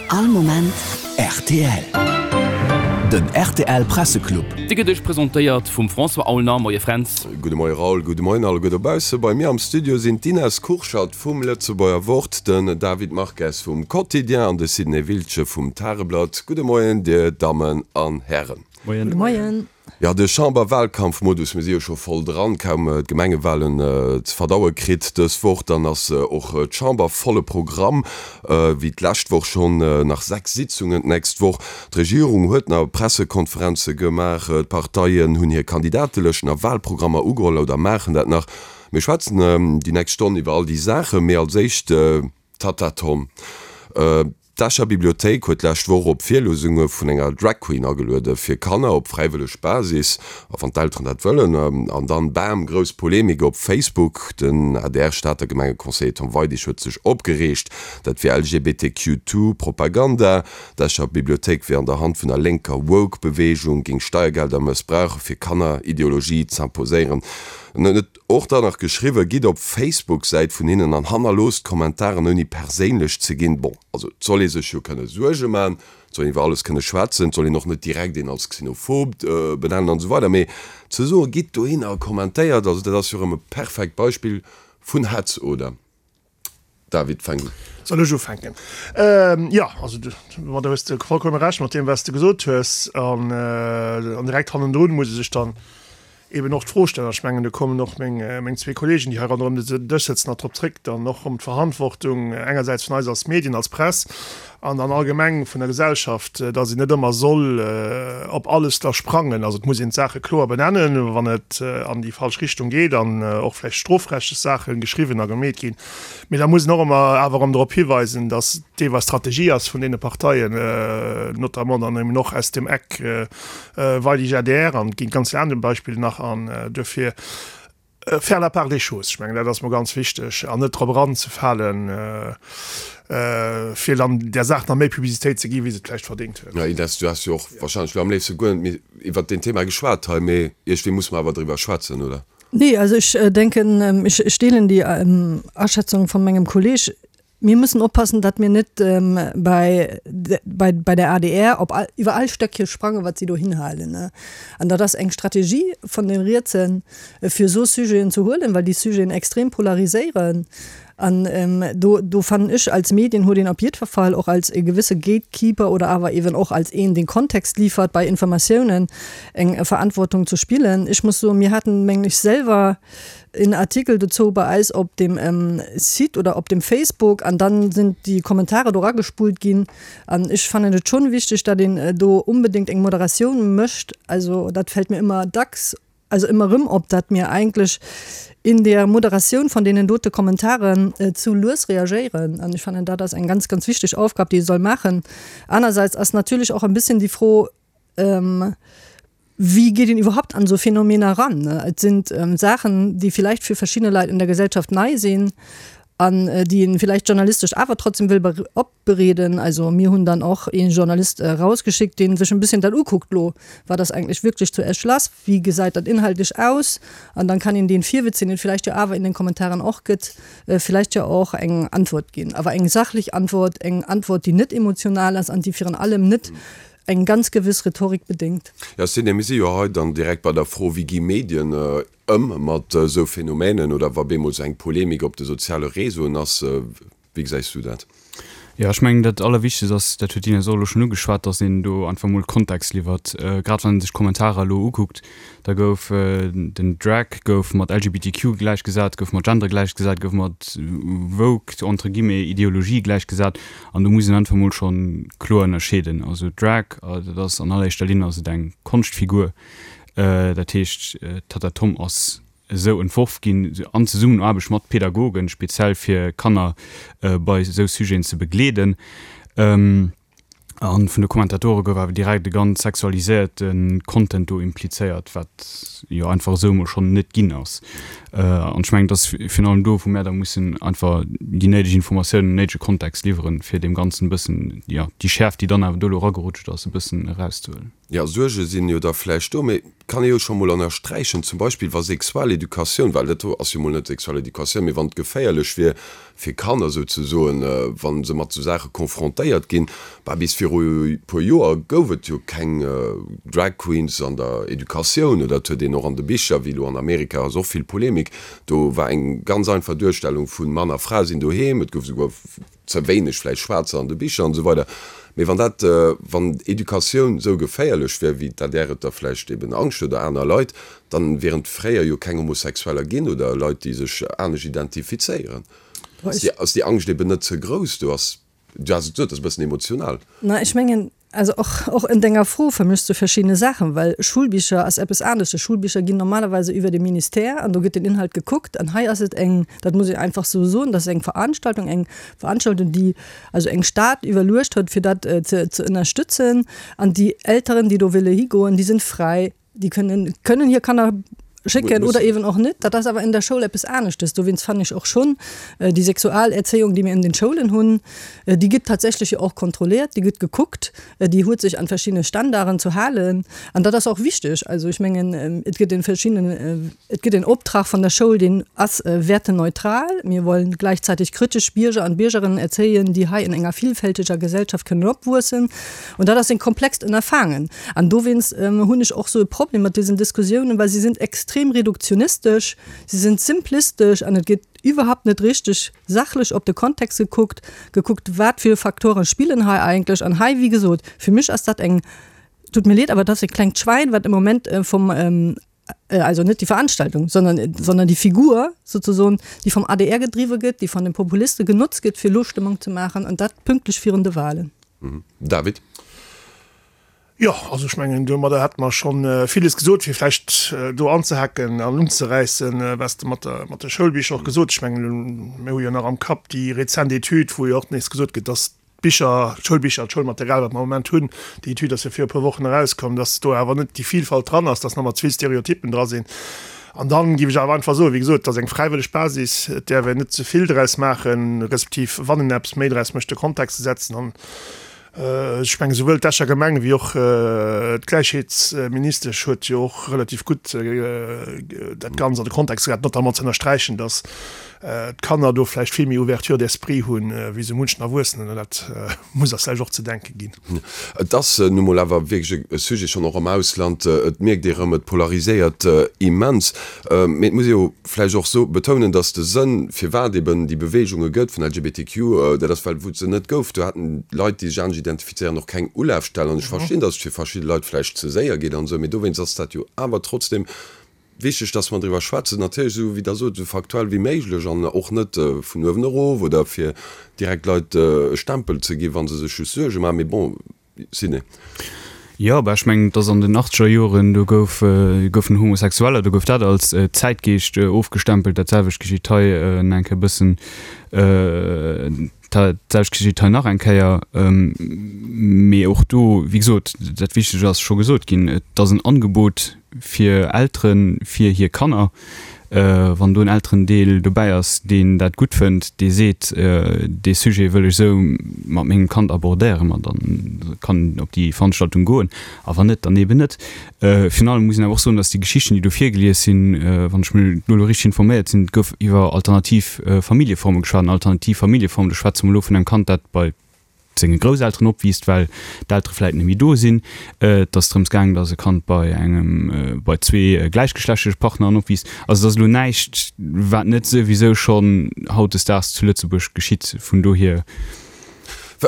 All Moment rtl. Den rtl Presseclub. Dee gëtt iech presentéiert vum François Aulner. Moie Fränz. Gudde Moie Raoul, gudde Moien alleguer dobausse. Bei mir am Studio sinn d'Ines Kurschat vum Lëtzebuerger Wort, den David Marques vum Quotidien an de Sidney Wiltgen vum Tageblatt. Gudde Moien dir Dammen an Hären. Moien. Gudde Moien. Jo, de Chamberwahlkampfmodus, mir si jo scho voll dran, kaum d'Gemengewahlen ze verdaue kritt dës Woch, dann ass och d'Chamber volle Programm, wéi d'lescht Woch schonn, nach 6 Sitzungen d'nächst Woch. D'Regierung huet nach Pressekonferenze gemaach, d'Parteien hunn hir Kandidatelëschten a Wahlprogrammer ugeholl oder maachen dat nach. Mir schwätzen déi nächst Stonn iwwer all déi Saachen, mee als éischt, Tatta Tom. D'Escher Bibliothéik huet d'lescht Woch op Virliesunge vun enger Drag Queen ageluede fir Kanner op fräiwëlleg Basis, a wann d'Elteren dat wëllen. An dann, bam, grouss Polemik op Facebook. Den ADR-Stater Gemengeconseiller Tom Weidig huet sech opgereegt, dat wier LGBTQ2-Propaganda. D'Escher Bibliothéik wier an der Hand vun der lénker Woke-Beweegung, géing Steiergelder mëssbrauche fir Kanner-Ideologie z'imposéieren. En huet Och dann nach geschriwwen, Gitt op d'Facebook-Säit vun hinnen an hannerloosst Kommentaren ouni perséinlech ze ginn. Bon, also et soll ee sech jo kënne Suerge man, et soll een iwwer alles kënne schwätzen, et soll een och net direkt een als xenophob benennen an esou weider, mee ze soen, gitt dohinner a kommentéiert, also dat ass jo erëm e perfekt Beispill vun Hetz, oder? David, fänk un. Soll ech ufänken? Jo, also do hues de vollkomme Recht mat deem, wat s de gesot hues. An direkt hannendrun muss ee sech dann eben och d'Fro stellen, an ech mengen, do kommen och meng zwee Kollegen, déi hei ronderëm den Dësch sëtzen, nach drop zréck, dann och ëm d'Verantwortung engersäits vun eis als Medien, als Press an dann allgemeng vun der Gesellschaft, dass een net ëmmer soll op alles da sprangen. Also et muss een d'Saache kloer benennen, wann et an déi falsch Richtung geet an och vläicht strofrechtlech Saache geschriwwen a gemeet ginn. Mee da muss een och ëmmer awer erëm drop hiweisen, dass deelweis Strategie ass vun deene Parteien, notamment dann eben och aus dem Eck Weidig adr, an et ginn ganz vill aner Beispiller nach, an duerfir faire la part des choses, ech mengen dat ass mol ganz wichteg, an net drop eranzefalen, fir dann där Saach nach méi Publicitéit ze ginn, wéi se et vläicht verdéngt huet. Jo, Ines, du häss jo och wahrscheinlech elo am léifste guer net méi iwwert deen Thema geschwat hei, mee iergendwéi musse mer awer driwwer schwätzen, oder? Nee, also ech denken, ech deelen déi Aschätzung von mengem Kolleg. Mir müssen oppassen, datt mir net bei, bei, bei der adr op all, iwwer all Stöckche sprangen, wat si do hinhalen. An dat ass eng Strategie vun den Rietsen, fir esou Sujeten ze huelen, well déi Sujeten extrem polariséieren. An do, do fannen ech, als Medien huet een op jiddwer Fall och als e gewësse Gatekeeper oder awer eeben och als een, deen Kontext liefert bei Informatiounen, eng Verantwortung ze spillen. Ech muss soen, mir haten, mengen ech, selwer en Artikel dozou bei eis op dem Site oder op dem Facebook an dann sinn déi Kommentare do ragespullt ginn. An ech fannen et schonn wichteg, datt een do unbedéngt eng Moderatioun mécht. Also dat fält mir ëmmer dacks, also ëmmer erëm op, datt mir eigentlech in der Moderatioun von deenen dote Kommentaren zu lues reagéieren. An ech fannen, dat ass eng ganz, ganz wichteg Aufgab, déi ee soll maachen. Anerseits ass natierlech och en bisschen déi Fro, Wie geet een iwwerhaupt an esou Phänomener eran? Et sinn Saachen, déi vielleicht fir verschidde Leit in der Gesellschaft nei sinn an déi een vielleicht journalistesch awer trotzdem wëll opbereeden. Also mir hunn dann och ee Journalist erausgeschickt, dee sech en bisschen dat ukuckt, Lo, wat ass eigentlech wierklech zu Esch lass? Wéi gesäit dat inhaltlech aus? An dann kann een deen Virwitz, deen et vielleicht jo awer in den Kommentaren och gëtt, vielleicht jo och eng Antwort ginn. Awer eng sachlech Antwort, eng Antwort, déi net emotional ass an déi virun allem net eng ganz gewëss Rhetorik bedéngt. Jo, Sidney, mir si jo hei dann direkt bei der Fro, Wéi gi Medien ëm mat esou Phänomänen oder wa bemol esou eng Polemik op de soziale Réseauen ass? Wéi gesäis du dat? Jo, ech mengen, dat Allerwichtegst ass, dat huet d'Ines och elo schonn ugeschwat, datt een do einfach emol Kontext liwwert. Grad wann ee sech d'Kommentarer elo ukuckt, da gouf den Drag gouf mat LGBTQ gläichgesat, gouf mat Gender gläichgesat, gouf mat woke, entre guillemets, Ideologie gläichgesat. An do muss een einfach emol scho kloer ënnerscheeden. Also Drag, dat ass an alleréischter Linn ass et eng Konschtfigur. Dat heescht, d'Tatta Tom ass esou entworf ginn, an Zesummenaarbecht mat Pädagogen, speziell fir Kanner bei esou Sujeten ze begleeden. A vun de Kommentatore gouf awer direkt e ganz sexualiséierte Content do implizéiert, wat jo einfach esou emol schonn net ginn ass. An ech mengen, et ass virun allem do, wou mär da mussen einfach déi néideg Informatiounen, den néidege Kontext liwweren, fir deem Ganzen e bëssen, jo, déi Schäerft, déi dann awer do elo eragerutscht ass, e bëssen erauszehuelen. Jo, Suerge sinn jo da vläicht do, mee et kann ee jo scho mol ënnersträichen, zum Beispill wa Sexualeducatioun, well dat do ass jo mol net Sexualeducatioun, mee wann et geféierlech wier fir Kanner souzesoen, wa se mat esou Saache confrontéiert ginn, bah bis viru e puer Joer gouf et jo keng Drag Queens an der Educatioun oder et huet een och an de Bicher, wéi elo an Amerika ass och vill Polemik, do war eng ganz einfach Duerstellung vun Mann a Fra sinn doheem, et gouf esouguer ze wéineg vläicht Schwaarzer an de Bicher an esou weider. Mee wann dat, wann Educatioun esou geféierlech wär, wéi d'ADR et da vläicht eben Angscht huet oder aner Leit, dann wieren et fréier jo keng Homosexueller ginn oder Leit, déi sech anescht identifizéieren. Ass déi, ass déi Angscht eben net ze grouss? Do ass, du has et gesot, dat ass e bëssen emotional. Na, ech mengen, Also och, och en denger Fro vermëschs du verschiddene Saachen, well Schulbicher ass eppes anesches. Schulbicher ginn normalerweise iwwer de Ministère an do gëtt den Inhalt gekuckt. An hei ass et eng, dat muss ech einfach sou soen, dat ass eng Veranstaltung, eng Veranstaltung, déi also eng Stad iwwerluecht huet, fir dat ze, ze ënnerstëtzen. An déi Elteren, déi do wëlle higoen, déi sinn fräi. Déi kënnen, kënnen hir Kanner schécken oder eben och net. Dat ass awer in der Schoul eppes aneschtes. Dowéinst fannen ech och schonn déi Sexualerzéiung, déi mir in den Schoulen hunn, déi gëtt tatsächlech jo och kontrolliert, déi gëtt gekuckt, déi huet sech an verschiddene Standarden zu halen. An dat ass och wichteg. Also ech mengen, et gëtt en verschiddenen, et gëtt en Optrag von der Schoul, deen ass werteneutral. Mir wollen gleichzeitig kritisch Bierger an Biergerinnen erzéien, déi hei in enger vielfältiger Gesellschaft kënnen opwuessen. Und dat ass en komplext Ënnerfangen. An dowéinst hunn ech och sou e Problem mat diesen Diskussiounen, well si sinn extrem reduktionistesch, si sinn simplistesch an et gëtt iwwerhaupt net richteg sachlech op de Kontext gekuckt, gekuckt wat fir Faktoren spillen hei eigentlech. An hei, wéi gesot, fir mech ass dat eng, tut mir leed, awer dat ass e klengt Schwäin, wat im Moment vum, also net déi Veranstaltung, sondern, sondern déi Figur sozusagen, déi vum adr gedriwwe gëtt, déi vun de Populiste genotzt gëtt, fir elo Stëmmung ze maachen, an dat pünktlech virun de Wahlen. David. Jo, also ech mengen, domadder hätte mer scho villes gesot, fir vläicht do anzehaken an unzeräissen, wat s de mat der, mat de Schoulbicher och gesot. Ech mengen, mir hu jo nach am Kapp déi rezent Etüd, wou jo och nees gesot gëtt, dass d'Bicher, d'Schoulbicher, d'Schoulmaterial, wat mer am Moment hunn, déi Etüd ass jo viru e puer Wochen erauskomm, dass do awer net déi Vielfalt dran ass, dass nach mat ze vill Stereotyppen dra sinn. An dann géif ech awer einfach soen, wéi gesot, et ass eng fräiwëlleg Basis, et däerf een net ze vill draus maachen, respektiv wann een eppes méi draus mécht, de Kontext ze setzen. An ech mengen, souwuel d'Escher Gemeng wéi och d'Gläichheetsministesch huet jo och relativ gutt dat Ganzt an de Kontext gesat, notamment ze ënnersträichen, dass d'Kanner do vläicht vill méi Ouverture d'esprit hunn, wéi sou munchen Erwuessenen. An dat muss eis vläicht och ze denke ginn. Et ass nu mol awer wierklech e Sujet, schonn och am Ausland. Et mierkt ee rëm, et polariséiert immens. Mee et muss ee jo vläicht och so betounen, datt de Sënn, firwat eben déi Beweegunge gëtt vun LGBTQ, dat ass well wou et se net gouf, do haten Leit, déi sech anescht identifizéieren, och keng Ulafstell. An ech verstinn, datt et fir verschidde Leit vläicht ze séier geet an esou, mee dowéinst ass dat jo awer trotzdem wichteg, datt mer driwwer schwätzen. Natierlech esou, wéi Der sot, esou faktuell wéi méiglech an och net vun uewen erof oder fir direkt Leit e Stempel ze ginn, wa se sech just Suerge maachen. Mee bon, Sidney. Jo, bah ech mengen, et ass an den achtzeger Joren, do gouf, goufen Homosexueller, do gouf dat als Zäitgeescht ofgestempelt. Dat selwecht geschitt hei eng Kéier e bëssen, dat selwecht geschitt hei nach eng Kéier. Mee och do, wéi gesot, dat Wichtegt ass scho gesot ginn, et ass en Angebot fir Eltere fir hir Kanner. Wann do en Elterendeel dobäi ass, deen dat gutt fënnt, dee seet, dee Sujet wëll ech esou mat mengem Kand abordéieren, ma da kann en op déi Veranstaltung goen, a wann net, dann eeben net. Virun allem muss een awer och soen, datt déi Geschichten, déi do virgelies sinn, wann ech mech do elo richteg informéiert sinn, et gouf iwwer alternativ Familljeforme geschwat. An alternativ Familljeformen, do schwätze mer elo vun engem Kand, dat bei senge Grousselteren opwiisst, well d'Eltere vläit net méi do sinn. Et ass drëms gaangen, datt e Kand bei engem, bei zwee gläichgeschlechtleche Partneren opwiisst. Also et ass elo näischt, wat net souwisou schonn hautdesdaags zu Lëtzebuerg geschitt. Vun dohier.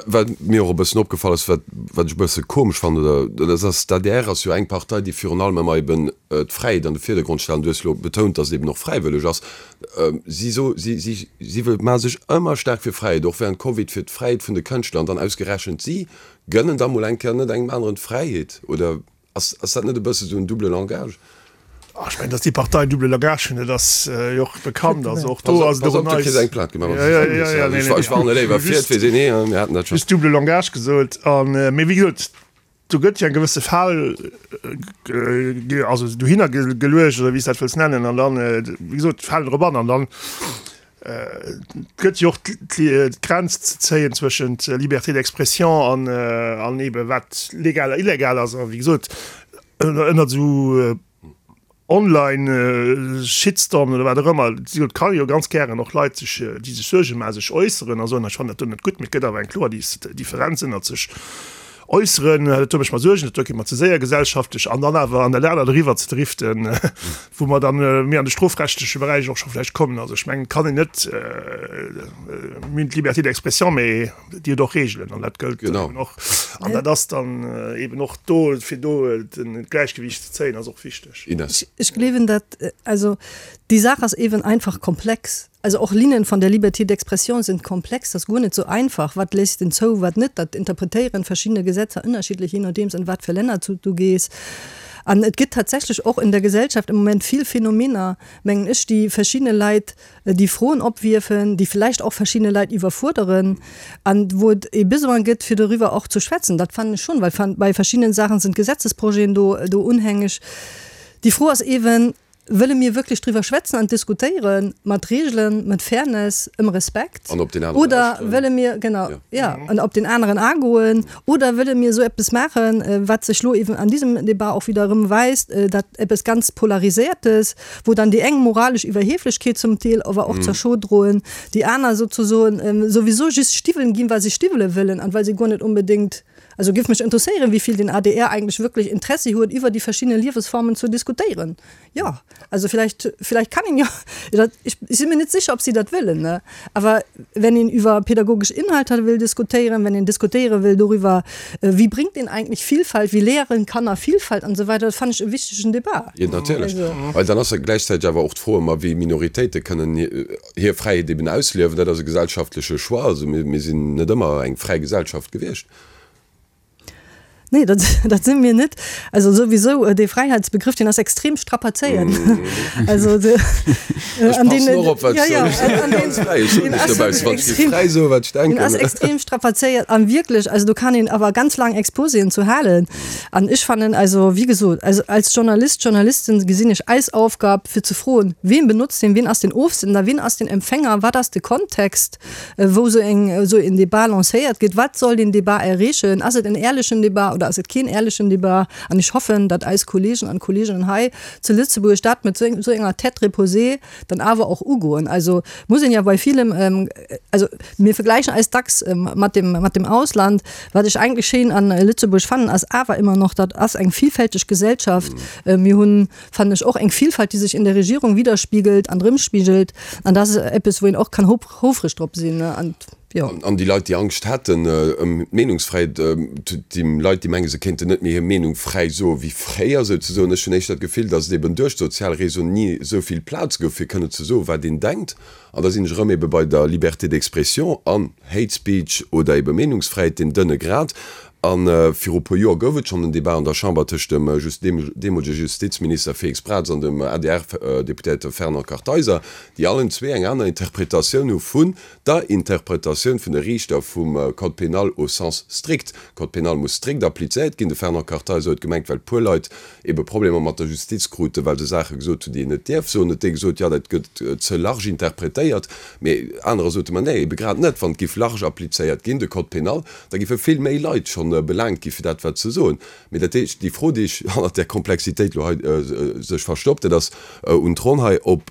Wat mir och e bëssen opgefall ass, wat wat ech e bësse komesch fannen, oder dat ass, d'ADR ass jo eng Partei, déi virun allem ëmmer eben d'Fräiheet an de Virdergrond stellt. An du hues elo betount, datt et eben och fräiwëlleg ass. Si so, si, si, si maache sech ëmmer staark fir Fräiheet, och während Covid fir d'Fräiheet vun de Kënschtler. An dann ausgerechent si gënnen da mol eng Kéier net engem aneren d'Fräiheet. Oder ass, ass dat net e bësse sou en double Langage? Ah, ech mengen, datt déi Partei en double Langage hunn, dat ass jo och bekannt. Also och do ass et och en neist. Pass op, du kriss eng Plainte gemaach, wann s du dat sees. Ech warne léiwer vir, et weess een ni, mir haten dat schonn. Just double Langage gesot. An, mee wéi gesot, Do gëtt jo eng gewësse Fal also dohinner geluecht oder wéi s dat wëlls nennen an dann, wéi gesot, falen drop an an dann. Et gëtt jo och d'Grenz ze zéien zwëschent Liberté d'expression an, an eebe wat legal a illegal ass. A wéi gesot, ënnert esou Online-Shitstormen oder wat och ëmmer, et ka jo ganz gären och Leit sech, déi sech Suerge maachen, sech äusseren a soen, ech fannen dat do net gutt. Mee et gëtt awer eng kloer Differenz ënnert sech äusseren, dat do mécht mer Suergen, dat do geet mer ze séier gesellschaftlech, an dann awer an dat anert eriwwer ze driften, wou mer dann méi an de strofrechtleche Beräich och scho vläicht kommen. Also ech mengen, et kann een net, mir hunn d'Liberté d'expression, mee déi huet och Regeln an dat gëllt eben och. An dat ass dann eben och do, fir do d'Gläichgewiicht ze zéien, ass och wichteg. Ines. Ech gleewen dat, also déi Saach ass eben einfach komplex. Also och Linien von der Liberté d'expression sind komplex, dat ass guer net sou einfach, wat léisst en zou, wat net, dat interpretéieren verschiddene Gesetzer ënnerschiddlech, je nodeems an wat fir Länner du gees. An et gëtt tatsächlech och in der Gesellschaft im Moment vill Phänomener, mengen ech, déi verschiddene Leit déi Froen opwierfen, déi vläicht och verschiddene Leit iwwerfuerderen an wou et e Besoin gëtt, fir doriwwer och ze schwätzen. Dat fannen ech schonn, well bei verschiddenen Saachen sind Gesetzesprojeten do do unhängeg. Déi Fro ass eeben, Wëlle mir wierklech driwwer schwätzen an diskutéieren, mat Regeln, mat Fairness, ëm Respekt? An op deen aneren Oder lauschteren. wëlle mir, genau, ja, an op deen aneren agoen? Oder wëlle mir esou eppes maachen, wat sech lo eben an diesem Debat och wieder erëm weist, dat eppes ganz Polariséiertes, wou dann déi eng moralesch Iwwerhieflechkeet zum Deel awer och zur Show droen, déi aner souzesoen souwisou just Stiwwelen ginn, well se Stiwwele wëllen an well se guer net onbedéngt Also giff mech interesséieren wéivill den adr eigentlech wierklech Interessi huet iwwer déi verschidden Liewesformen zu diskutéieren. Jo, also vielleicht, vielleicht kann een jo, dat, ech si mir net sécher ob si dat wëllen, ne, awer wenn een iwwer pädagogesch Inhalter wëll diskutéieren, wenn een diskutéiere wëll doriwwer, wie bringt een eigentlich Vielfalt, wie lehren Kanner Vielfalt an esou weider, dat fannen ech e wichtegen Debat. Jo, natierlech, well dann ass jo gläichzäiteg awer och d'Fro ëmmer, wéi Minoritéite kënnen hir Fräiheet eben ausliewen. Dat ass e gesellschaftleche Choix. Also mir sinn net ëmmer eng fräi Gesellschaft gewiescht. Nee, dat, dat si mir net. Also souwisou, dee Fräiheitsbegrëff, deen ass extrem strapazéiert. Also de, Ech an deen, passen och op, wat ech soen. Ech sinn net ganz fräi. Ech soen lech dobaussen, wann ech géif fräi soen, wat ech denken. Deen ass extrem strapazéiert an wierklech, also do kann een awer ganz laang Exposéen zu halen. An ech fannen, also wéi gesot, also als Journalist, Journalistin gesinn ech eis Aufgab, fir ze froen, Ween benotzt deen, wien ass den Ofsender, wien ass den Empfänger, wat ass de Kontext, wou esou eng, esou een Debat lancéiert gëtt, wat soll deen Debat erreechen, ass et en éierlechen Debat oder ass et keen éierlechen Debat? An ech hoffen, datt eis Kollegen an Kolleginnen hei zu Lëtzebuerg dat mat esou enger Tête reposée dann awer och ugoen. Also muss een ja bei villem, also mir vergläichen eis dacks mat dem, mat dem Ausland. Wat ech eigentlech schéin an Lëtzebuerg fannen, ass awer ëmmer noch, dat ass eng vielfälteg Gesellschaft. Mir hunn, fannen ech, och eng Vielfalt, déi sech in der Regierung widerspiegelt an erëmspigelt. An dat ass eppes, wou een och kann houfreg drop sinn. An jo. An déi Leit, déi Angscht hätten ëm d'Meenungsfräiheet, déi Leit, déi mengen, se kéinten net méi hir Meenung fräi soe wéi fréier souzesoen, ech hunn éischter d'Gefill, datt et eben duerch d'sozial Réseauen ni esou vill Plaz gouf, fir kënnen ze soen, wat een denkt. An da sinn ech erëm ebe bei der Liberté d'expression an Hate Speech oder ebe Meenungsfräiheet, deen dënne Grad. A viru puer Joer gouf et schonn en Debat an der Chamber tëscht dem deemolege Justizminister Félix Braz an dem ADR-Deputéierte Fernand Kartheiser, déi allen zwee eng aner Interpretatioun hu vun der Interpretatioun vun de Riichter vum Code pénal au sens strict. Code pénal muss strikt applizéiert ginn. De Fernand Kartheiser huet gemengt, well puer Leit ebe Problemer mat der Justiz kruten, well se Saache gesot hunn, déi een net dierf soen, huet dee gesot, jo, dat gëtt ze large interpretéiert. Mee anerer sote, ma nee, ebe grad net, wann et géif large applizéiert ginn, de Code pénal, da géife vill méi Leit schonn belaangt gi fir dat wat se soen. Mee dat heescht, déi Fro, déi ech hannert där Komplexitéit elo hei sech verstoppt, dat ass un d'Ronn hei, ob,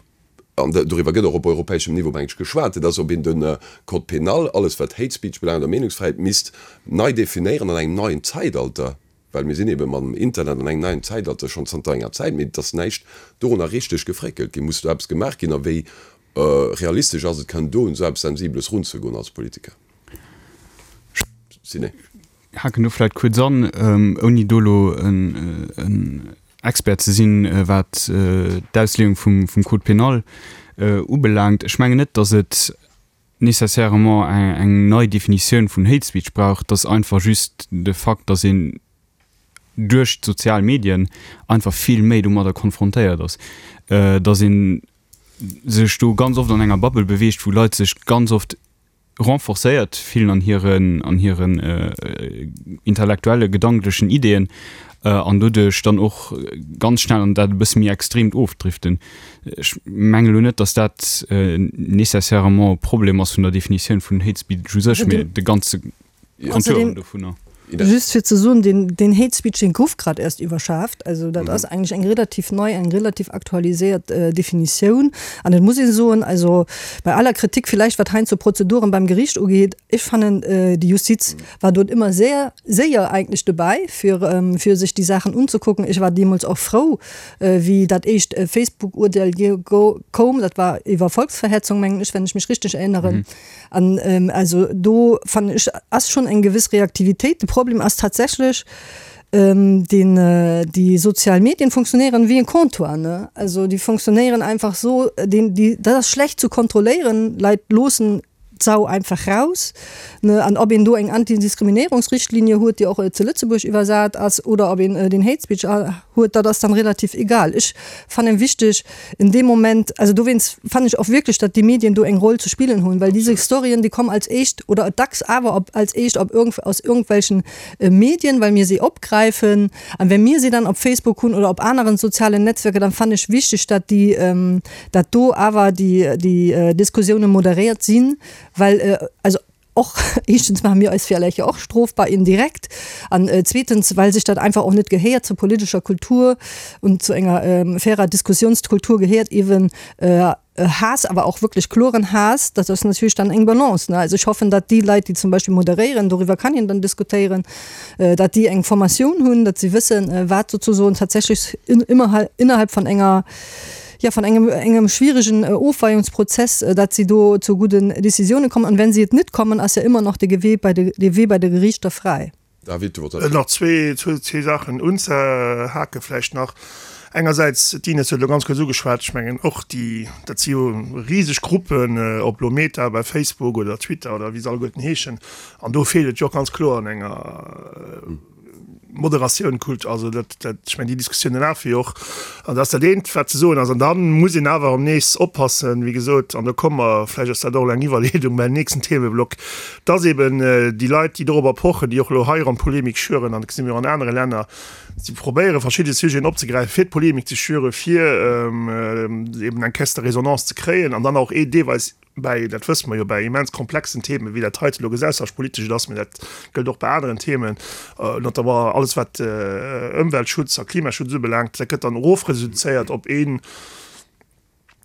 an doriwwer gëtt och op europäeschem Niveau, meng ech, geschwat, dat ass, ob een de Code pénal, alles wat Hate Speech belaangt a Meenungsfräiheet, misst nei definéieren an engem neien Zäitalter. Well mir sinn ebe mam Internet an engem neien Zäitalter schonn zanter enger Zäit, mee et ass näischt dorunner richteg gefréckelt ginn. Muss do eppes gemaach ginn a wéi realistesch ass et, kënnen do un esou eppes Sensibeles runzegoen als Politiker? Ciné. Haken do vläit kuerz an, ouni do elo en Expert ze sinn, wat d'Ausleeung vum Code pénal ubelaangt. Ech mengen net, datt et nécessairement eng nei Definitioun vun Hate Speech brauch, et ass einfach just de Fakt, dass een duerch d'sozial Medien einfach vill méi domadder konfrontéiert ass, dass ee sech do ganz oft an enger Bubble beweegt, wou Leit sech ganz oft. renforcéiert fillen an hiren, an hiren intellektuelle, gedanklechen Ideeën an doduerch dann och ganz schnell an dat e bësse méi Extreemt ofdriften. Ech mengen elo net, datt dat nécessairement e Problem ass vun der Definitioun vun Hate Speech u sech, mee de ganze Contouren dovunner. Just fir ze soen, deen, deen Hate Speech, deen gouf grad erst iwwerschaaft. Also dat ass eigentlech eng relativ nei, eng relativ aktualiséiert Definitioun. An et muss ee soen, also bei aller Kritik villäicht, wat heiansdo Prozeduren beim Gericht ugeet, ech fannen, déi Justiz war dort ëmmer sehr séier eigentlech dobäi, fir, fir sech déi Saachen unzekucken. Ech war deemools och frou, wéi dat éischt Facebook-Urteel koum, dat war iwwer Volksverhetzung, mengen ech, wenn ech mech richteg erinneren. An also do fannen ech ass schonn eng gewëss Reaktivitéit. De Problem ass tatsächlech, deen déi sozial Medien funktionéieren wéi en Comptoir, ne? Also déi funktionéieren einfach esou, deen déi dat ass schlecht zu kontrolléieren. Leit loossen d'Sau einfach raus, ne? An ob een do eng Antidiskriminéierungsrichtlinie huet, déi och zu Lëtzebuerg iwwersat ass, oder ob een den Hate Speech huet, dat ass dann relativ egal. Ech fannen wichteg, In deem Moment, also dowéinst fannen ech och wierklech, datt déi Medien do eng Roll ze spillen hunn, well diese Storyen, déi kommen als éischt oder dacks awer op als éischt op irgend aus irgendwelchen Medien, well mir si opgräifen. An wenn mir si dann op Facebook hunn oder op aneren sozialen Netzwerker, dann fannen ech wichteg, datt déi, datt do awer déi déi Diskussiounen moderéiert sinn, well also Och, éischtens maache mir eis villäicht jo och strofbar indirekt an zweetens, well sech dat einfach och net gehéiert zur politescher Kultur und zu enger fairer Diskussionskultur gehéiert eeben Haass, awer och wierklech kloren Haass. Dat ass natierlech dann eng Balance, ne. Also ech hoffen, datt déi Leit, déi zum Beispill moderéieren, doriwwer kann een dann diskutéieren, datt déi eng Formatioun hunn, datt si wëssen, wat sozusoen tatsächlech innerhalb von enger, ja, von engem, engem schwierigen Ofweiungsprozess, datt si do zu gudden Décisionen kommen. An wenn si et net kommen, ass ja immer noch de Gewee bei de, de Wee bei de Gerichter fräi. David, du wollts. Nach zwee, zwee Saachen unzehake vläicht nach. Engersäits, d'Ines huet elo ganz kuerz ugeschwat, ech mengen och déi, dat si jo riseg Gruppen, ob elo Meta bei Facebook oder Twitter oder wéi se alleguerten heeschen, an do feelt et jo och ganz kloer an enger, Moderatioun, Kult, also dat, dat, ech mengen déi Diskussioune lafe jo och, an dat ass dat eent wat ze soen ass. An da muss een awer erëm nees oppassen, wéi gesot, an do komme mer, vläicht ass dat och elo eng Iwwerleedung beim nächsten Themeblock, dass eben déi Leit, déi dorobber pochen, déi och elo hei erëm Polemik schüren, an dat gesi mir och an anere Länner, si probéiere verschidde Sujeten opzegräifen, fir d'Polemik ze schüren, fir eben eng Caisse de résonance ze kréien an dann och deelweis, bäi, dat wësse mer jo, bäi immens komplexen Themen, wéi dat heite elo gesellschaftspolitesch et ass, mä dat gëllt och bei aneren Themen, notamment alles wat Ëmweltschutz a Klimaschutz ubelaangt, dat gëtt dann erofreduzéiert op een,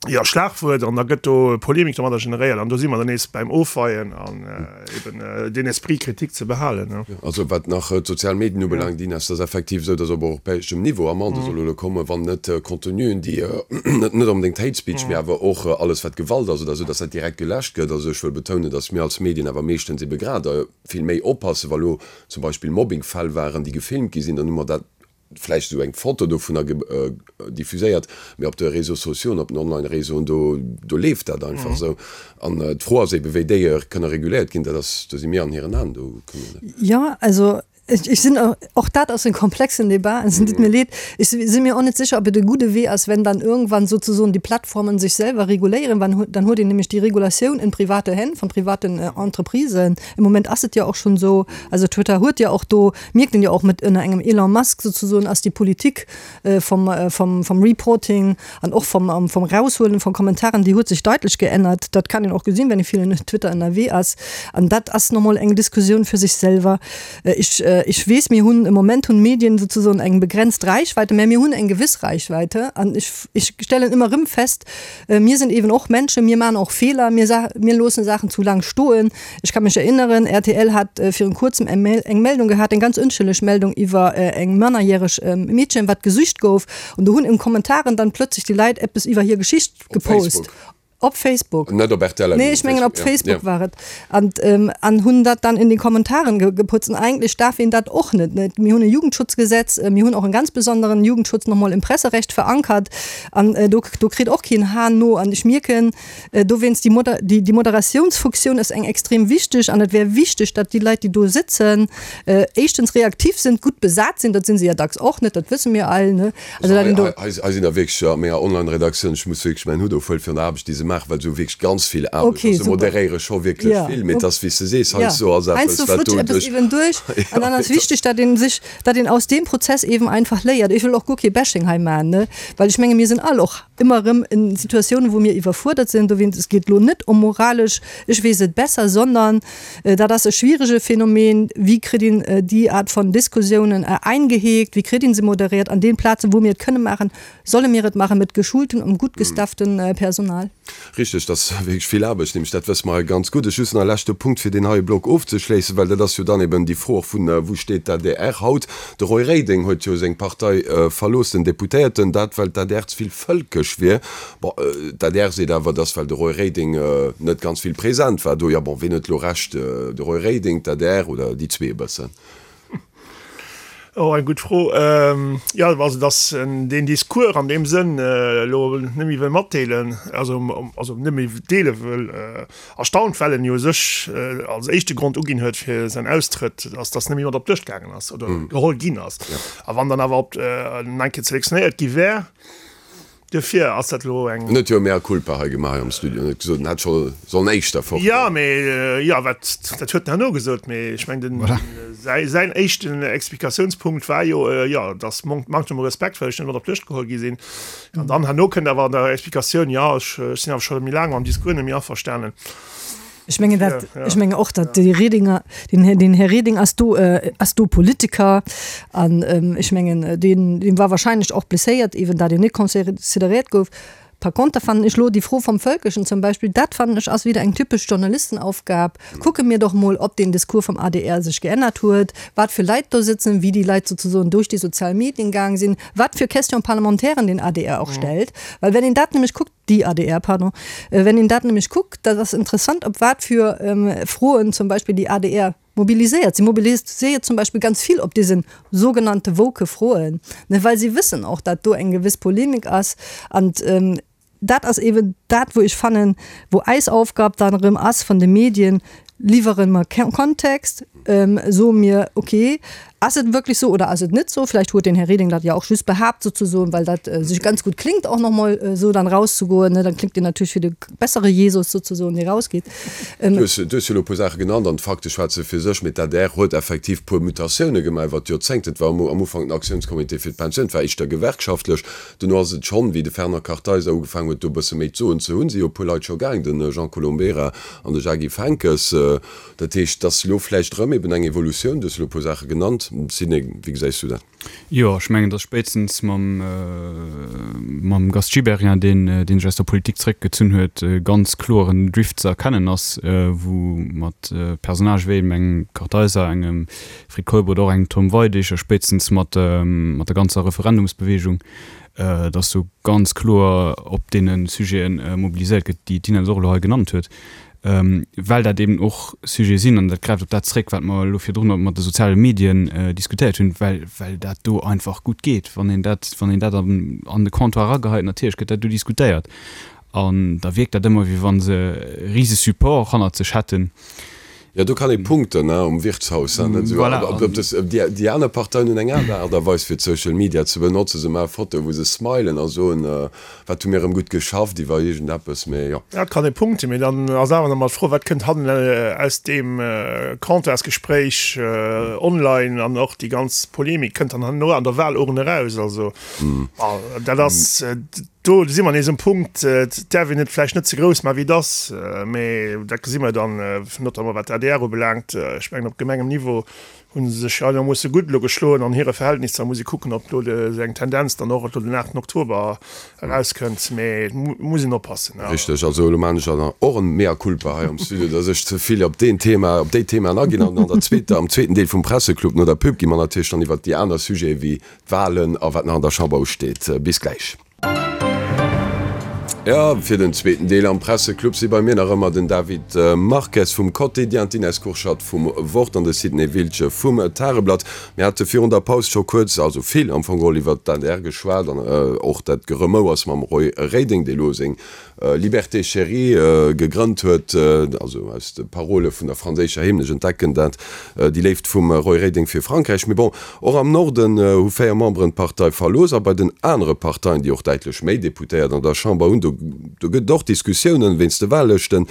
jo, Schlagwuert an da gëtt do Polemik domadder generéiert an do si mer dann nees bäim Ofweien an eben deen Esprit critique ze behalen. Also wat nach d'sozial Medien ubelaangt, Ines, et ass effektiv esou, datt op europäeschem Niveau Amendë solle elo kommen, wann net Contenuen, déi net onbedéngt Hate Speech, mee awer och alles wat Gewalt ass oder esou, dass dat direkt geläscht gëtt. Also ech wëll betounen, dass mir als Medien awer meeschtens ebe grad vill méi oppassen, wa lo zum Beispill Mobbingfäll waren, déi gefilmt gi sinn, dann hu mer dat vläicht esou eng Foto dovunner diffuséiert, mee op de Réseaux sociaux an op den Online-Réseauen, do do leeft dat einfach esou. An d'Fro ass ebe wéi déi kënne reguléiert ginn, dat ass, do si mir an hiren Aen, do kënne mir net. Jo, also Ech sinn, och dat ass en komplexen Débat, es deet mir leed, ech si mir och net sécher, ob et e gudde Wee ass, wenn dann irgendwann sozusoen die Plattformen sich selber reguléieren, wann, dann huet een nämlech déi Regulatioun in private Hänn von privaten Entreprisen. Im Moment ass et jo och schonn esou, also Twitter huet jo och do, mierkt een jo och mat ënner engem Elon Musk sozusoen ass déi Politik vom, vom, vom Reporting an och vom, vom Raushuelen von Kommentaren, déi huet sech deitlech geännert. Dat kann een och gesinn, wenn ee vill en Twitter ënnerwee ass. An dat ass nomol eng Diskussioun fir sech selwer. Ech, ech weess, mir hunn e Moment hunn d'Medien sozusoen eng begrenzt Reichweite, mä mir hunn eng gewëss Reichweite. An ech, ech stellen ëmmer erëm fest, mir sinn eben och Menschen, mir maachen och Feeler, mir sa, mir loossen Saachen zu laang stoen. Ech ka mech erinneren, rtl hat virun kuerzem eng eng Meldung gehat, eng ganz ënschëlleg Meldung iwwer eng mannerjäreg Meedchen, wat gesucht gouf. An do hunn en Kommentaren dann plötzlich déi Leit eppes iwwer hir Geschicht gepost. Op Facebook. Net op rtl. Nee, ech mengen op Facebook war et. An an hunn dat dann in den Kommentaren geputzt. An eigentlech darf een dat och net, ne? Mir hunn e Jugendschutzgesetz, mir hunn och en ganz besonderen Jugendschutz nochmol im Presserecht verankert. An do do kritt och keen Hahn no. An ech mierken, Dowéinst, déi Moder, déi, déi Moderatiounsfuktioun ass eng extrem wichteg an et wär wichteg, datt déi Leit, déi do sëtzen, éischtens reaktiv sinn, gutt besat sinn, dat si se ja dacks och net, dat wësse mir all, ne? Also dat een do. Hei, hei sinn der wierklech a menger Online-Redaktioun, ech muss wierklech mäin Hutt ofhuelen fir an der Aarbecht, déi se maachen. maachen, well se hu wierklech ganz vill Aarbecht. Okay, Se moderéiere scho wierklech ja. vill, mee et ass wéi s de sees, heiansdo ass eppes, wat do duerch. Eben duerch. An dann ass wichteg, datt een sech, datt een aus deem Prozess eben einfach léiert. Ech wëll och guer kee Bashing hei maachen, ne, well ech menge mir sinn all och ëmmer erëm in Situatiounen, wou mir iwwerfuerdert sinn. Dowéinst, et geet elo net ëm moralesch, ech weess et besser, sondern dat ass e schwierege Phänomen, Wéi kritt een déi Art von Diskussiounen eingeheekt, wéi kritt een se moderiert an den Plazen, wou mir et kënne maachen, Solle mir et maache mit geschultem und gut gestafftem Personal? Richteg, dat ass wierklech vill Aarbecht, nämlech dat wësse mer hei ganz gutt. Ech just nach e leschte Punkt, fir deen heie Block ofzeschléissen, well dat ass jo dann eben déi Fro och vun, Wou steet d'ADR haut? De Roy Reding huet jo seng Partei verlooss, den Deputéierten, dat well d'ADR ze vill vëlkesch wier. Bon, d'ADR seet awer, dass well de Roy Reding net ganz vill present war do. Jo, bon, wien huet elo Recht, de Roy Reding, d'ADR oder déi zwee e bëssen? Oh, eng gutt Fro. Jo, also datt en deen Discours an deem Sënn elo net méi wëll matdeelen, also also net méi deele wëll, erstaunt, well en jo u sech als éischte Grond uginn huet fir säin Austrëtt, ass, datt net méi mat op d'Lëscht gaangen ass oder geholl ginn ass. A wann dann awer op en eng Kéier selektionéiert gi wär, Duerfir ass dat elo eng. En huet jo e mea culpa hei gemaach hei am Studio an huet gesot, en hätt scho sollen éischter fort goen. Jo, mee jo, wat, dat huet en herno gesot, mee ech mengen, den, säi, säin éischten Explikatiounspunkt war jo, jo, dass Manktem u Respekt, well ech net mat op d'Lëscht geholl gi sinn. An dann herno kënnt awer an der Explikatioun, jo, ech, ech sinn awer scho méi laang mam Discours net méi averstanen. Ech mengen dat, ech mengen och, datt de Redinger, den Här, den Här Reding ass do, ass do Politiker an ech mengen deen, deen war wahrscheinlech och blesséiert eben, datt en net considéréiert gouf. Par conter fannen ech lo déi Fro vom Völkischen zum Beispill, dat fannen ech ass wieder eng typesch Journalistenaufgab. Kucke mir doch mol, ob den Discours vom adr sech geännert huet, wat fir Leit do sitzen, wéi déi Leit sozusoen duerch déi sozial Medien gaang sinn, wat fir Question-parlementairen den adr och stellt. Well wenn een dat nämlech kuckt, déi adr, pardon, wenn een dat nämlech kuckt, dat ass interessant, op wat fir Froen zum Beispill déi adr mobiliséiert. Si mobiliséiert zum Beispill ganz vill op dese sogenannte woke Froen, ne, well si wëssen och, dat do eng gewëss Polemik ass. An dat ass eeben dat, wou ech fannen, wou eis Aufgab dann erëm ass vun de Medien, Liwwere mer Kontext, soe mir, okay, ass et wierklech sou oder ass et net sou? Vläicht huet den Här Reding dat jo och just behaapt souzesoen, well dat sech ganz gutt klingt, och nach mol esou dann rauszegoen, ne? Dann klingt een natierlech wéi de bessere Jesus souzesoen, dee rausgeet. Du hues jo elo e puer Saache genannt an d'Fakte schwätze fir sech. Mee d'ADR huet effektiv puer Mutatioune gemaach iwwer d'Joerzéngten. Et war am Ufank den Aktiounscomité fir d'Pensioun, et war éischter gewerkschaftlech. Dono ass et schonn, wéi de Fernand Kartheiser ugefaangen huet, do e bësse méi d'Soen ze hunn, si jo e puer Leit scho gaang, de Jean Colombera an de Jacques-Yves Henckes. Dat heescht, et ass elo vläicht erëm eben eng Evolutioun. Du hues elo e puer Saache genannt. Sidney, wéi gesäis du dat? Jo, ech mengen, datt spéitstens mam, mam Gast Gibéryen, deen, dee sech aus der Politik zeréckgezunn huet, e ganz kloeren Drift ze erkennen ass, wou mat Personnagë wéi eben engem Kartheiser, engem Fred Keup oder och engem Tom Weidig a spéitstens mat mat der ganzer Referendumsbewegung, datt do ganz kloer op deene Sujete mobiliséiert gëtt, déi d'Inès och elo hei genannt huet, well dat eben och Sujete sinn, an dat gräift op dat zréck, wat mer elo virdrun mat de soziale Medien diskutéiert hunn, well well dat do einfach gutt geet, wann een dat wann een dat an an de Comptoir erageheit, natierlech gëtt dat do diskutéiert an da wierkt dat ëmmer, wéi wa se e rise Support hannert sech hätten. Jo, do kann ee punkten, ne, um Wirtshaus. Voilà. Déi aner Parteien hunn eng aner Aart a Weis fir d'Social Media ze benotzen. Se maache Fotoe wou se smilen a soen, wat hu mir erëm gutt geschafft iwwer iergendeppes, mee jo. Ja, et kann ee punkten, mee dann ass awer nach emol d'Fro, wat kënnt hannen aus deem Comptoirsgespréich online an och déi ganz Polemik kënnt dann herno an der Wahlurn eraus. Also dat ass. Do si mer nees um Punkt, et däerf een et vläicht net ze grouss maachen, wéi et ass, mä dat gesi mer dann, notamment wat d'ADR ubelaangt. Ech mengen, op Gemengenniveau hu se sech einermoosse gutt elo geschloen an hire Verhältnisser. Muss ee kucken, ob do esou eng Tendenz dann och elo den 8 Oktober erauskënnt, mä et muss een oppassen. Richteg. Also elo maachen ech dann och en Mea culpa hei am Studio, dass ech ze vill op deen Thema, op déi Themaen aginn. An an der zweeter, am zweeten Deel vum Presseclub no der Pub gi mer natierlech dann iwwert déi aner Sujete wéi D'Walen a wat nach an der Chamber usteet. Bis gläich. Jo, fir den zweeten Deel am Presseclub si bei mir nach ëmmer den David Marques vum Quotidien, d'Ines Kurschat vum Wort an de Sidney Wiltgen vum Tageblatt. Mir hate virun der Paus scho kuerz, also vill am Fong geholl, iwwert d'ADR geschwat an och dat Geremouers mam Roy Reding, dee lo seng. Liberté Chérie gegrënnt huet, also aus de Parole vun der franséischer Hymn, ech entdecken dat, déi Léift vum Roy Reding fir Frankräich. Mee bon, och am Norden hu 4 Memberen d'Partei verlooss a bei den anere Parteien, déi och däitlech méi Deputéiert an der Chamber hunn, do gëtt et och Diskussiounen wéinst de Wahllëschten.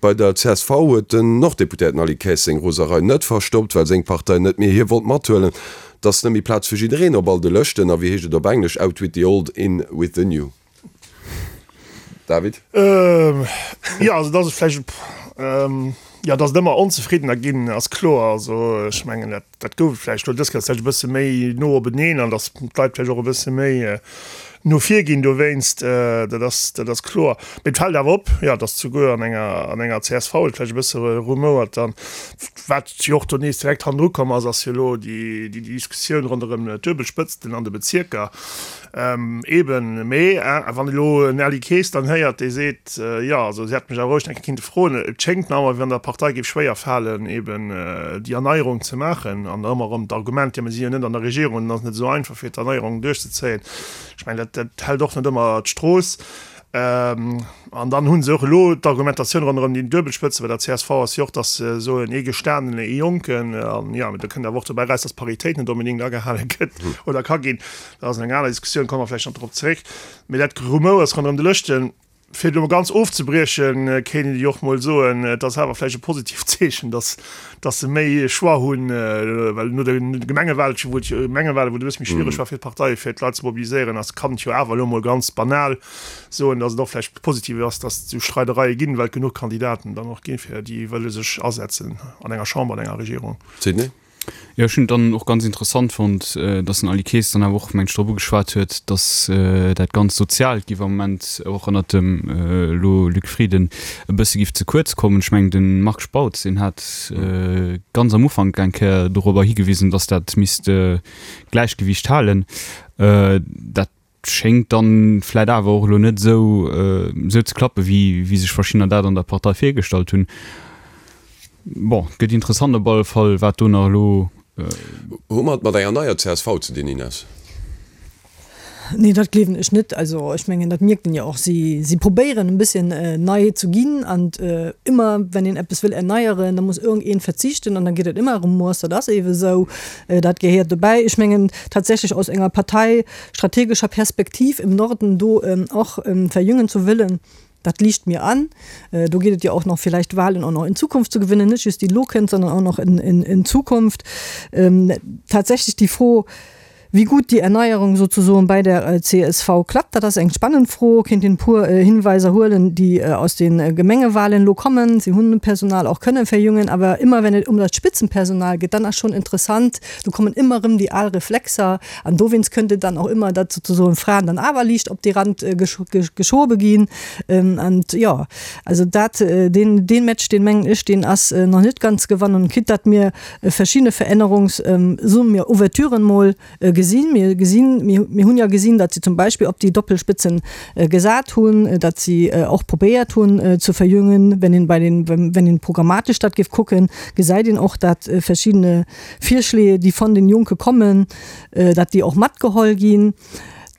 Bei der csv huet den Norddeputéierten Aly Kaes seng Roserei net verstoppt, well seng Partei net méi hie wollt mathuelen. Et ass net méi Plaz fir jiddereen op all de Lëschten a wéi heescht et op Englesch, out with the old, in with the new. David? Jo, also dass et vläicht, jo, dass et ëmmer Onzefriddener ginn, ass kloer. Also ech mengen, dat, dat gouf et vläicht elo dës Kéier vläicht e bësse méi no openeen an dass d'Leit vläicht och e bësse méi no vir ginn dowéinst. Dat ass, dat ass kloer. Mee et fält awer op, jo, dass souguer an enger, an enger csv et vläicht e bësse rumouert dann. Wat jo och do nees direkt hannendru komm ass, ass jo elo déi, déi Diskussioun ronderëm d'Duebelspëtzten an de Bezierker. Eben, mee wann elo en Aly Kaes dann héiert, dee seet, jo, also si hätte mech awer roueg eng Kéier kinnte froen, et schéngt mer awer, wéi wann der Partei géif schwéier falen, eben déi Erneierung ze maachen an ëmmer erëm d'Argument, jo, mir si jo net an der Regierung an et ass net esou einfach fir d'Erneierung duerchzezéien. Ech mengen, dat dat hält och net ëmmer d'Strooss. An dann hu se och elo d'Argumentatioun ronderëm déi Duebelspëtze bei der csv ass jo och, datt se soen, ee Gestanenen, ee Jonken. An jo, do kënnt awer och dobäi eraus, datt d'Paritéit net onbedéngt agehale gëtt oder ka ginn. Dat ass eng aner Diskussioun, komme mer vläicht nach drop zeréck. Mee dat Gerumouers ronderëm de Lëschten, fir et elo mol ganz ofzebriechen, kéint een jo och mol soen, et ass awer vläicht e positiivt Zeechen, dass, dass se méi Choix hunn, well no de Gemengewahlen, wou et jo, Gemengewahlen, wou et e bësse méi schwiereg war fir d'Parteie fir d'Leit ze mobiliséieren, ass, kann et jo awer elo mol ganz banal soen, dass et och vläicht positiv ass, dass et esou Streidereie ginn, well et genuch Kandidaten dann och ginn, fir déi wëlle sech asetzen an enger Chamber, an enger Regierung. Sidney? Jo, ech hunn et dann och ganz interessant fonnt, dass den Aly Kaes dann awer och, meng ech, drop ugeschwat huet, dass dat ganz Soziaalt giff am Moment och ënnert dem elo Luc Frieden e bësse giff ze kuerz kommen. Ech mengen, de Marc Spautz, deen hat ganz am Ufank eng Kéier dorobber higewisen, dass dat misst d'Gläichgewiicht halen. Dat Schéngt dann vläit awer och elo net esou esou ze klappen, wéi wéi sech verschiddener dat an der Partei virgestallt hunn. Bon, et gëtt interessant op alle Fall, wat do nach elo. Hu mer et mat enger neier csv ze dinn, Ines? Nee, dat gleewen ech net. Also ech mengen, dat mierkt een jo och. Si si probéieren e bësschen nei ze ginn an ëmmer wenn een eppes wëll erneieren, da muss iergendeen verzichten an da geet et ëmmer Remords. Dat ass eebe esou, dat gehéiert dobäi. Ech mengen tatsächlech aus enger Partei, strategischer Perspektiv im Norden do och verjüngen zu wëllen, dat liicht mir an. Do geet et jo och nach vielleicht Wahlen och nach in Zukunft zu gewinnen, net just déi elo kënnt, sondern och nach in Zukunft. Tatsächlich déi Fro, wéi gut déi Erneierung sozusoen bei der csv klappt, dat ass eng spannend Fro. Kéint een e puer Hinweiser huelen, déi aus de Gemengewahlen elo kommen. Si hunn Personal och kënne verjüngen, awer ëmmer wenn et um dat Spitzenpersonal geet, dann ass schonn interessant, do kommen ëmmer erëm déi al Reflexer, An dowéinst kënnt et dann och ëmmer, datt sozusagen Fraen dann awer liicht op dee Rand geschobe ginn. An jo, also dat, deen, deen Match, deen mengen ech, deen ass nach net ganz gewannen, quitte datt mir verschidde Verännerungs-, soe mir Ouverturen mol gesinn. Mir gesinn, mir, mir hunn jo gesinn, datt si zum Beispill op déi Doppelspitzen gesat hunn, datt si och probéiert hunn ze verjüngen. Wenn een bei den, wenn een programmatesch dat géif kucken, gesäit een och, datt verschiddene Virschléi, déi von den Jonke kommen, datt déi och matgeholl ginn,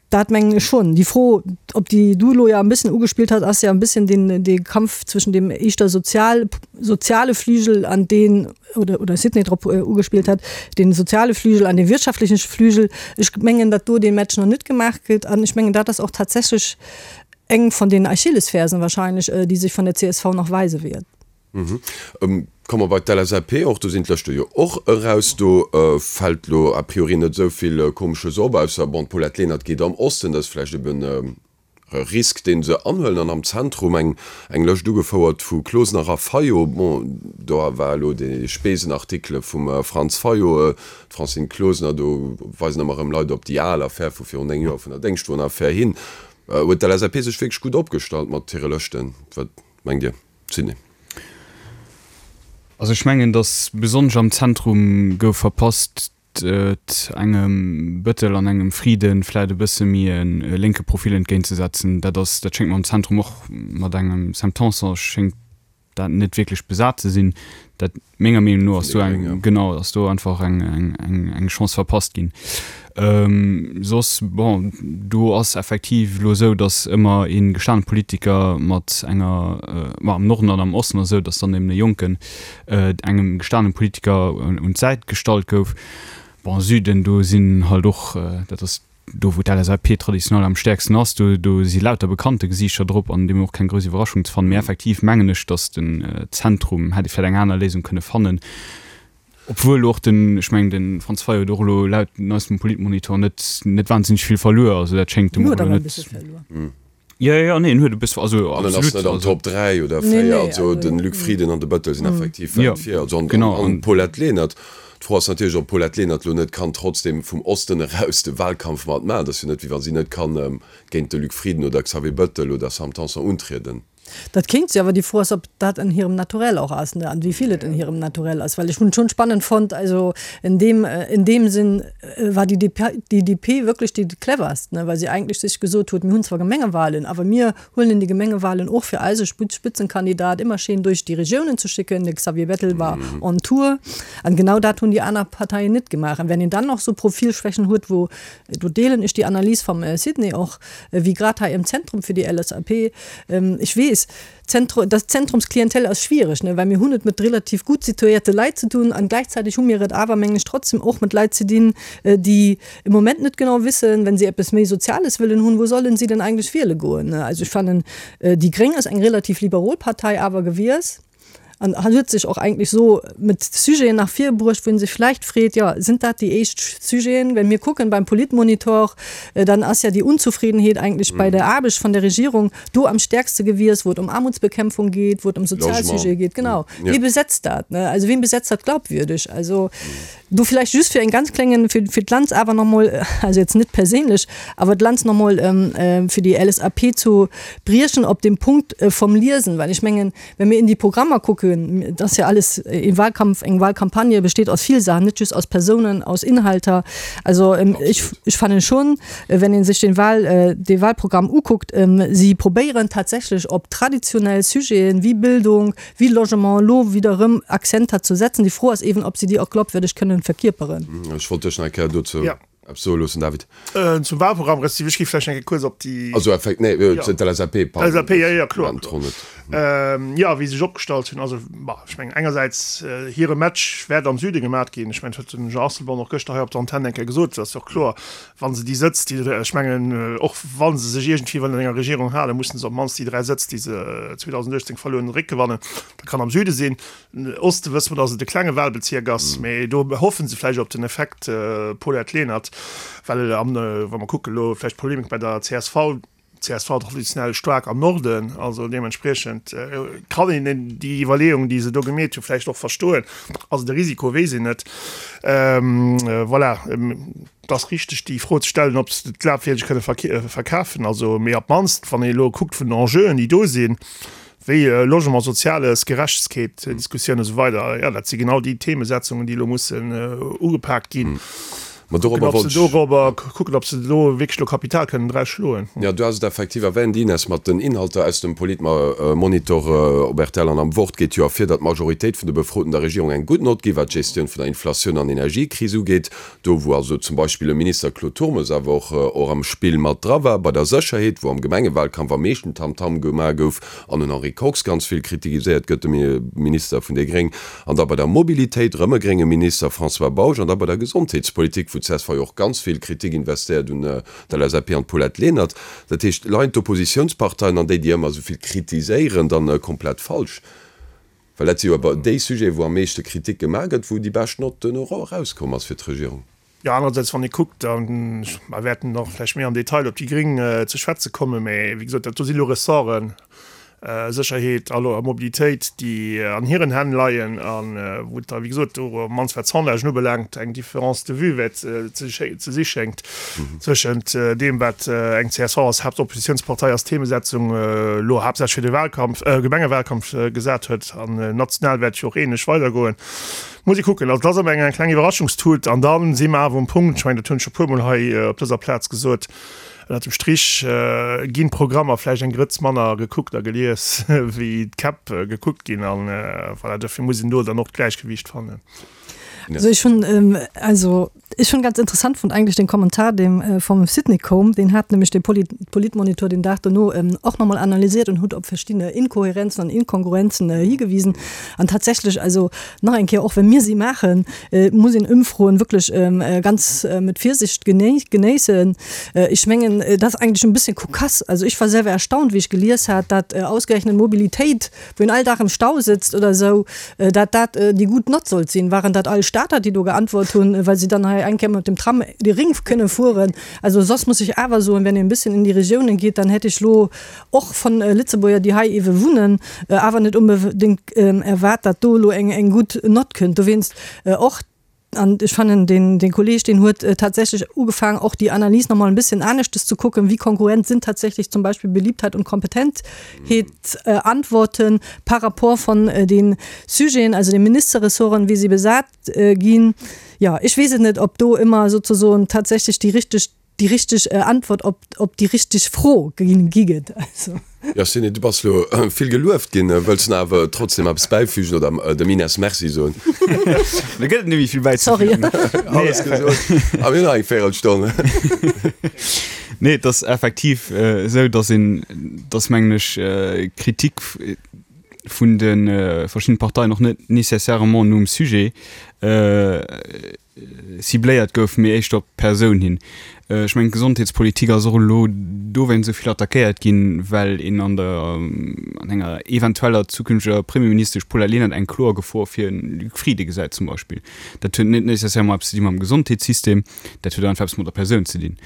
dat mengen ech schonn. Déi Fro, op déi du elo jo e bëssen ugespillt hues, ass jo e bëssen deen, dee Kampf zwëschen deem éischter sozial, soziale Flügel an deen, oder, oder Sidney drop ugespillt hat, dee soziale Flügel an dee wirtschaftleche Flügel. Ech mengen, datt do dee Match nach net gemaach gëtt an ech mengen, dat ass och tatsächlech eng von den Achillesfersen wahrscheinlech, déi sech von der csv nach weise wäert. Komme mer bei d'LSAP, och do sinn d'Lëschte jo och eraus. Do fält lo a priori net esou vill Komesches op, ausser, bon, d'Paulette Lenert geet am Osten, dat ass vläicht eben e Risk, dee se anhuelen. An am Zentrum eng eng Lëscht ugefouert vu Closener a Fayot. Bon, do war elo dee Spesenartikele vum Franz Fayot, d'Francine Closener, do weisen ëmmer erëm Leit op déi al Affär vu virun 9 Joer vun der Déngschtwon-Affär hin. Huet d'LSAP sech wierklech gutt opgestallt mat hire Lëschten? Wat mengt Dir? Sidney. Also ech mengen, datt besonnesch am Zentrum gouf verpasst, et engem Bëttel an engem Frieden vläit e bësse méi e lénke Profil entgéintzesetzen. Dat ass, dat schéngt mer am Zentrum och mat engem Sam Tanson schéngt dat net wierklech besat ze sinn. Dat menger Meenung no ass do eng, genau, ass do einfach eng, eng, eng Chance verpasst ginn. Soss, bon, do ass effektiv elo esou, datt ëmmer ee gestane Politiker mat enger, ma am Norden an am Osten ass esou, datt dann eben e Jonken engem gestane Politiker un d'Säit gestallt gouf. Bon, Süden, do sinn halt och, dat ass do wou d'LSAP traditionell am stäerksten ass, do do si lauter bekannte Gesiichter drop an deemno och keng grouss Iwwerraschung ze fannen. Mee effektiv mengen ech, datt den Zentrum hätt ee vläicht eng aner Léisung kënne fannen. Obwuel och den, ech mengen de Franz Fayot huet och elo laut neistem Politmonitor net net wahnsinneg vill verluer, also dat schéngt dem och elo net. Jo, jo, nee, en huet e bësse, also An en ass absolut, net an also. Top 3 oder Nee, 4, nee, also also de Luc Frieden an de Bettel sinn effektiv Jo, wäit vir, also an genau, an an. d'Paulette Lenert. D'Fro ass natierlech, ob d'Paulette Lenert elo net kann trotzdem vum Osten eraus de Wahlkampf mat maachen. Et ass jo net, wéi wa si net kann géint de Luc Frieden oder Xavier Bettel oder Sam Tanson untrieden. Dat kéint si, awer déi Fro ass, ob dat en hirem Naturell och ass, ne, an wéi vill et en hirem Naturell ass. Well ech hunn et schonn spannend fonnt, also en deem, en deem Sinn war déi DP, déi DP wierklech déi cleverst, ne, well si eigentlech sech gesot huet, mir hunn zwar Gemengewahlen, awer mir huelen déi Gemengewahlen och fir eise Spitzenkandidat ëmmer schéin duerch déi Regiounen ze schicken. De Xavier Bettel war on tour. An genau dat hunn déi aner Parteien net gemaach. An wenn een dann nach esou Profilschwächen huet, wou, do deelen ech déi Analys vum Sidney och, wéi grad hei am Zentrum fir déi LSAP, Ech weess, Zentru, das Zentrumsklientel ass schwierig, ne, well mir hunn et mat relativ gutt situéierte Leit ze dun an gläichzäiteg hu mir et awer, mengen ech, trotzdem och mat Leit ze dinn, déi im Moment net genau wissen, wenn si eppes méi Soziales wëllen hunn, wou sollen si denn eigentlech wiele goen, ne. Also ech fannen, déi Gréng ass eng relativ liberol Partei awer gewies. An huet sech och eigentlech so mit Sujeten nach vir bruecht, wou een sech vläicht freet, jo, sind dat déi éischt Sujeten? Well mir kucken beim Politmonitor, dann ass ja déi Unzufriedenheet eigentlech bei der Aarbecht vun der Regierung do am stärkste gewies, wou et ëm Aarmutsbekämpfung geet, wou et ëm Sozialsujete geet. Genau. Wie besetzt dat, ne? Also wien besetzt dat glaubwürdig? Also do vläicht just fir en ganz klengen, fir, fir d'Lanz awer nach mol, also jetzt net perséinlech, awer d'Lanz nach mol fir déi LSAP zu briechen op dem Punkt vom Liesen, well ech mengen, Wenn mir in déi Programmer kucken, et ass ja alles e Wahlkampf, eng Wahlcampagne besteet aus vill Saachen, net just aus Persounen, aus Inhalter. Also ech, ech fannen schon, wenn ee sech den Wahl, dee Wahlprogramm ukuckt, si probéieren tatsächlech op traditionell Sujeten wéi Bildung, wéi Logement elo wieder erëm Akzenter ze setzen. Déi Fro ass eeben, ob si déi och glaubwürdeg kënnen verkierperen. Ech wollt dech nach eng Kéier dozou Eppes soe loossen, David. Zum Wahlprogramm, respektiv ech gi vläicht eng Kéier kuerz op déi. Also effekt, nee, d'LSAP, pardon. LSAP, jo, jo, kloer, kloer. Jo, wéi se sech opgestallt hunn, also, bah, ech mengen engersäits, hire Match wäert am Süde gemat ginn. Ech mengen, dat huet den Jean Asselborn och gëschter hei op der Antenn eng Kéier gesot. Dat ass jo och kloer, wa se déi Sëtz, déi, ech mengen, och wa se sech iergendwéi wëllen an enger Regierung halen, mussen se op d'mannst déi 3 Sëtz, déi se 2018 verluer hunn, eréckgewannen. Dat kann am Süde sinn. Oste wësse mer, datt et e klenge Wahlbezierk ass, mee do hoffe se vläicht op den Effekt Paulette Lenert, well am, wa mer kucken elo vläicht d'Polemik bei der csv, csv traditionell staark am Norden, also deementspriechend kann een déi Iwwerleeung, déi se do gemeet hu vläicht och verstoen. Ass et e Risiko, weess een net. Voilà, et ass richteg déi Fro ze stellen, ob se et glafwierdeg kënne verkafen, also mee op d'mannst wann ee elo kuckt vun den Enjeuen, déi do sinn, wéi Logement, Soziales, Gerechtegkeet, Diskussioun esou weider, jo, dat si genau déi Themesetzungen, déi elo mussen ugepaakt ginn. Ma dorobber wollt ech. Dorobber kucken, ob se do wierklech elo Kapital kënnen draus schloen. Jo, du has et effektiv erwähnt, Ines, mat den Inhalter aus dem Politmonitor op rtl an am Wort geet jo ervir, datt d'Majoritéit vun de Befroten der Regierung eng gutt Nott gi wat d'Gestioun vun der Inflatioun an Energiekris ugeet. Do wou also zum Beispill e Minister Claude Turmes awer och och am Spill mat dra war, bei der Sécherheet, wou am Gemengewalkampf am meeschten Tamtam gemaach gouf an den Henri Kox ganz vill kritigiséiert gëtt, de Minister vun déi Gréng, an da bei der Mobilitéit, erëm e grénge Minister, François Bausch, an da bei der Gesondheetspolitik, wou d'CSV jo och ganz vill Kritik investéiert un d'LSAP an d'Paulette Lenert. Dat heescht, leien d'Oppositiounsparteien an déi, déi ëmmer esou vill kritiséieren, dann komplett falsch? Well dat si jo awer déi Sujeten, wou am meeschte Kritik gemaach gëtt, wou déi bescht Nott duerno erauskomm ass fir d'Regierung. Jo, anerersäits, wann ee kuckt, a mer wäerten och vläicht méi am Detail op déi Gréng ze schwätze kommen, mä wéi gesot, dat do si lo Ressorten, Sécherheet a Mobilitéit, déi an hiren Hänn leien a wou et da, wéi gesot, do op d'mannst wat d'Sondagen ubelaangt, eng Différence de vue wäert ze si schéngt. Zwëschent deem, wat eng csv als Haaptoppositiounspartei als Themesetzung elo haaptsächlech fir de Wahlkampf, Gemengewalkampf gesat huet, an national wäert et jo och ähnlech weidergoen, muss ee kucken. Also et ass ëmmer eng kleng Iwwerraschungstut. An da si mer awer um Punkt, ech mengen, dat hunn ech scho puermol hei op dëser Plaz gesot, ënnert dem Strich ginn d'Programmer vläicht eng Grëtz manner gekuckt a gelies, wéi d'Käpp gekuckt ginn. An voilà, dofir muss een do dann och d'Gläichgewiicht fannen. Also ech hunn, also. Ech hunn ganz interessant fonnt eigentlech den Kommentar deem vum Sidney koum, deen hat nämlech de Politmonitor den Dag dono och nach mol analysiert und huet op verschiddene Inkohärenzen an Inkongruenzen higewisen. An tatsächlech, also nach eng Kéier, och wenn mir si maachen, muss een Ëmfroen wierklech ganz mit Virsicht genéissen. Ech mengen, dat ass eigentlech en bësschen kokass. Also ech war selwer erstaunt, wéi ech gelies hat, dat ausgerechnet Mobilitéit, wou een all Dag am Stau sëtzt oder esou, dat dat déi gutt Nott sollt sinn. Waren dat all Stater, déi do geantwort hunn, well se dann hei eng Kéier mat dem Tram de Ring kënne fueren? Also soss muss ech awer soen, wenn een e bësschen in déi Regiounen geet, dann hätt ech lo och von Lëtzebuerger, déi hei ewe wunnen, awer net onbedéngt erwaart, dat do elo eng eng gutt Nott kënnt. Dowéinst och, an ech fannen, deen dee Kolleeg, deen huet tatsächlech ugefaangen, och déi Analys nach mol en bësschen aneschtes ze kucken, wéi kongruent sinn tatsächlech zum Beispill Beliebtheit und Kompetentheetsantworten par rapport von den Sujeten, also den Ministerressorten, wéi si besat ginn. Jo, ech weess et net, ob do ëmmer sozesoen tatsächlech déi richteg déi richteg Antwort op op déi richteg Fro gi gëtt. Also. Jo Sidney, du bass lo vill gelueft ginn. Wëlls de awer trotzdem eppes bäifügen oder dem Ines Merci soen? Do gëtt et net méi vill bäizefügen. Sorry. Alles gesot. A mir hunn nach eng Véirelstonn. Nee, et ass effektiv esou, datt een, datt mengen ech, Kritik vun de verschiddenen Parteien och net nécessairement nom Sujet cibléiert gouf, mee éischter op d'Persoun hin. Ech mengen, d'Gesondheetspolitik ass och elo dowéinst esou vill attackéiert ginn, well een an der, an enger eventueller zukünfteger Premierministesch Paulette Lenert eng kloer Gefor fir de Luc Frieden gesäit zum Beispill. Dat huet net nécessairement eppes ze di mam Gesondheetssystem, dat huet einfach eppes mat der Persoun ze dinn.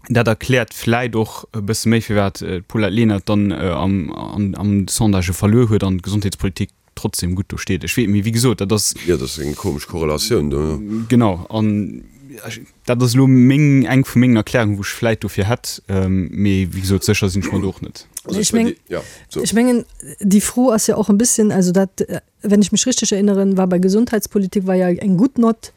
Dat erkläert vläit och e bësse méi, firwat d'Paulette Lenert dann am, am Sondage verluer huet an d'Gesondheetspolitik trotzdem gutt do steet. Ech weess, mee wéi gesot, dat ass. Jo, dat ass eng komesch Korrelatioun do, jo. Genau, an dat ass elo meng, eng vu mengen Erklärungen, wou ech vläit dofir hätt, mee wéi gesot, sécher sinn ech mer do och net. Also ech meng, ech mengen, déi Fro ass jo och e bësschen, also dat, wenn ich mich richtig erinnere, war bei Gesundheitspolitik war ja eng gutt Nott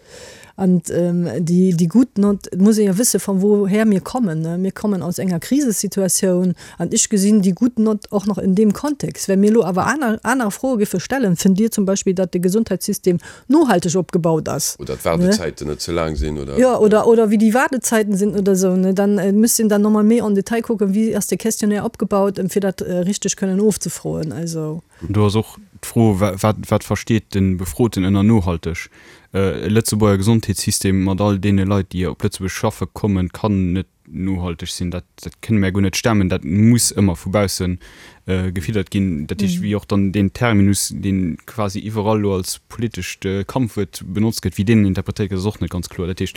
an déi, déi gutt Nott, et muss ee jo wësse von woher mir kommen, ne. Mir kommen aus enger Krisesituatioun an ech gesinn déi gutt Nott och nach in deem Kontext. Well mir elo awer aner, aner Froe géife stellen, Fënnt Dir zum Beispill, datt de Gesundheitssystem nohalteg opgebaut ass? Oder d'Waardezäiten net ze laang sinn, oder? Jo, oder, oder wéi déi Waardezäiten sinn oder esou, ne. Dann müsst een dann nochmol méi en Detail kucken, wéi ass de Questionnaire opgebaut, fir dat richteg kënnen ofzefroen. Also. Do ass och d'Fro, wat, wat versteet de Befroten ënner nohalteg? E Lëtzebuerger Gesondheetssystem mat all deene Leit, déi op Lëtzebuerg schaffe kommen, kann net nohalteg sinn. Dat, dat kënne mär guer net stemmen. Dat muss ëmmer vu bausse gefiddert ginn. Dat heescht, wéi och dann deen Terminus, dee quasi iwwerall elo als politescht Kampfwuert benotzt gëtt, wéi deen interpretéiert gëtt, ass och net ganz kloer. Dat heescht,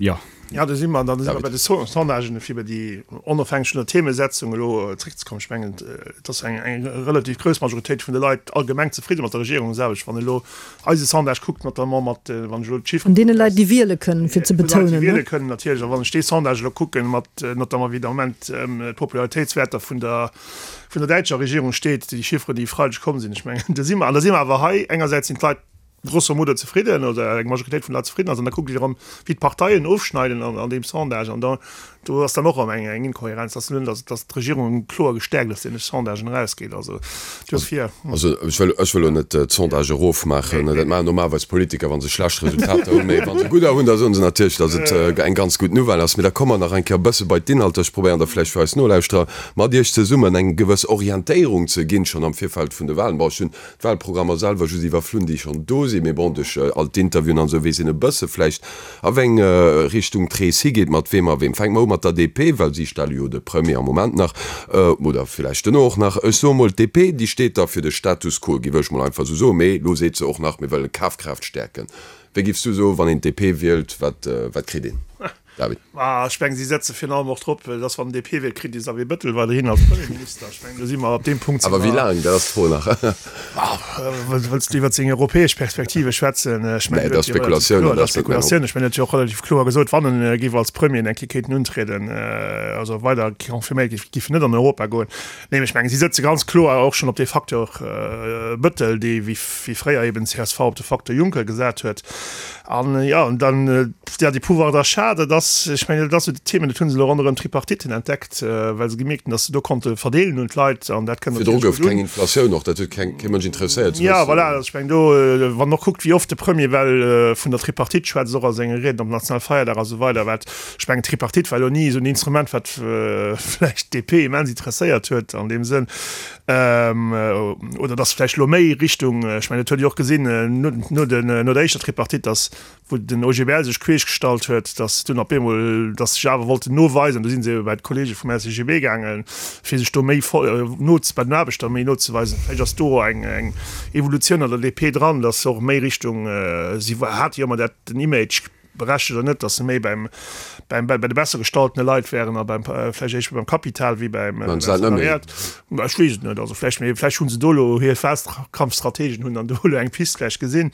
jo. Jo, do si mer, da si mer bei de Sondagen, fir bei déi onofhängeg vun der Themesetzung elo zréckzekommen. Ech mengen, et ass eng eng relativ grouss Majoritéit vun de Leit allgemeng zefridde mat der Regierung selwecht. Wann een elo eise Sondage kuckt, notamment mat, wann ech elo d'Chiffren Vun deene Leit, déi wiele kënnen, fir ze betonen, ne? Vun de Leit, déi wiele kënnen, natierlech. A wann ech dee Sondage elo kucken, mat notamment wéi de Moment d'Popularitéitswäerter vun der vun der däitscher Regierung steet, déi Chiffren, déi e Freideg komm sinn, ech mengen, do si mer, an da si mer awer hei, engersäits sinn d'Leit, grosso modo zefridden oder eng Majoritéit vun de Leit zefridden ass, an da kuckt Dir erëm, wéi d'Parteien ofschneiden an deem Sondage, an da do ass dann och erëm eng eng Inkohärenz, dass nun, dass dass d'Regierung kloer gestäerkt aus deene Sondagen erausgeet. Also duerfir. Also ech wëll ech wëll elo net d'Sondage erofmaachen, dat maachen normalerweis Politiker, wa se schlecht Resultater hunn, mee wa se gudder hunn, da soen se natierlech, dass et eng ganz gutt Nouvelle ass. Mee da komme mer nach eng Kéier e bësse bei d'Inhalter. Ech probéieren da vläicht fir eis Nolauschterer mat Iech zesummen eng gewëss Orientéierung ze ginn, schonn am Virfeld vun de Wahlen. Bon, ech hunn d'Wahlprogrammer selwer just iwwerflunn, déi schonn do sinn, mee bon, duerch all d'Interviewen an esou weess een e bësse vläicht, a wéi eng Richtung d'Rees higeet, mat weem a weem. Fänke mer u mat der DP, well si stelle jo de Premier am Moment nach, oder vläicht duerno och nach. Ech soe mol, d'DP, déi steet da fir de Status quo, giff ech mol einfach esou soen, mee elo seet se och nach, mir wëllen Kafkraaft stäerken. Wéi giffs du soen, wann een d'DP wielt, wat, wat kritt een? David. Ah, ech mengen, si setze virun allem och drop, dass wann den DP wielt, kritt de Xavier Bettel weiderhin als Premierminister. Ech mengen, do si mer op deem Punkt. Awer wéi laang, dat ass d'Fro nach. Wëlls du iwwer seng europäesch Perspektive schwätzen? Ech mengen, dat ass Spekulatioun. Dat ass Spekulatioun. Ech mengen, en huet jo och relativ kloer gesot, wann en géif als Premier eng Kéier kéinten untrieden, also weider confirméiert géif, géif en net an Europa goen. Nee, ech mengen, si sëtze ganz kloer och schonn op dee Facteur Bëttel, dee wéi fréier eben csv op de Facteur Juncker gesat huet. An jo, an dann, ja, de Pouvoir d'achat, dat ass. ass, ech mengen, dat ass esou d'Themen, dat hu se elo ronderëm d'Tripartiten entdeckt, well se gemierkt hunn, datt se do konnte verdeelen un d'Leit an dat kënnt Virdru gouf keng Inflatioun och, dat huet keng, kee Mënsch interesséiert ze wëssen. Ja, voilà, also ech mengen do, wann en och kuckt, wéi oft de Premier well vun der Tripartite schwätzt, och a senge Rieden op Nationalfeierdag a sou weider, wat, ech mengen, d'Tripartite war elo ni esou en Instrument, wat vläicht d'DP immens interesséiert huet an deem Sënn, oder datt vläicht elo méi Richtung, ech mengen, dat huet Dir och gesinn no den, no der éischter Tripartite, datt wou den OGBL sech queesch gestallt huet, datt dunn op eemol, datt sech awer wollten noweisen, do si se ebe bei d'Kollege vum LCGB gaangen, fir sech do méi no bei den Aarbechter méi nozeweisen. Vläicht ass do eng eng Evolutioun an der DP dran, datt se och méi Richtung, si hate jo ëmmer dat den Image, berechtegt oder net, datt se méi beim beim bei de besser gestaltene Leit wären a beim vläicht éischter beim Kapital wéi beim Salariat. Ech weess et net. Also vläicht, mee vläicht hu se do elo hir Wahlkampfstrategen hunn dann do elo eng Pist vläicht gesinn.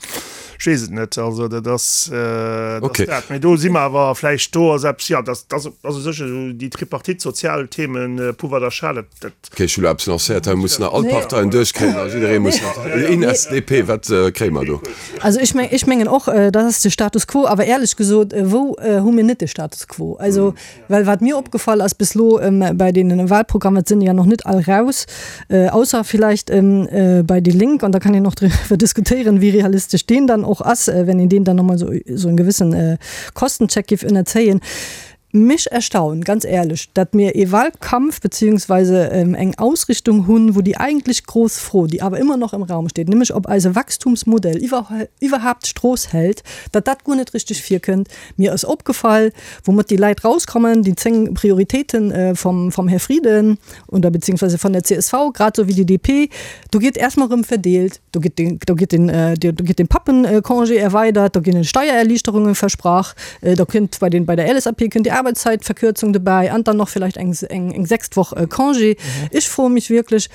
Ech weess et net. Also dat ass, dat ass dat. Mee do si mer awer vläicht, do ass eppes, jo, dat ass also sécher esou déi Tripartite, sozial Themen, Pouvoir d'achat, dat, dat. Okay, ech hu elo eppes lancéiert. Hei mussen nach all d'Parteien duerchkréien a jidderee muss nach, Ines, DP, wat kréie mer do? Also ech meng, ech mengen och, dat ass de Status quo. Awer éierlech gesot, wou hu mir net de Status quo? Also, well wat mir opgefall ass bis elo bei deenen Wahlprogrammen, et sinn ja noch net all raus, ausser vielleicht bei déi Lénk, an da kann een och driwwer diskutéieren, wéi realistesch deen dann och ass, wenn een deen dann nochmol esou esou en gewëssen Kostencheck géif ënnerzéien. Mech erstaunt, ganz éierlech, datt mir ee Wahlkampf beziehungsweise eng Ausrichtung hunn, wou déi eigentlech grouss Fro, déi awer ëmmer noch am Raum steet, nämlech ob eise Wachstumsmodell iwwerhaapt d'Strooss hält, datt dat guer net richteg virkënnt. Mir ass opgefall, woumat déi Leit rauskommen, déi 10 Prioritéiten vom, vom Här Frieden oder beziehungsweise von der csv, grad esou wéi déi DP, do gétt erstmol erëm verdeelt, do gétt den, do gétt den, do gétt den Pappencongé erweidert, do ginn Steiererliichterungen versprach, do kënnt bei den, bei der LSAP kënnt déi Arbeitszeitverkürzung dobäi an dann nach vielleicht eng, eng, eng sechst Woch Congé. Ech froe mech wierklech,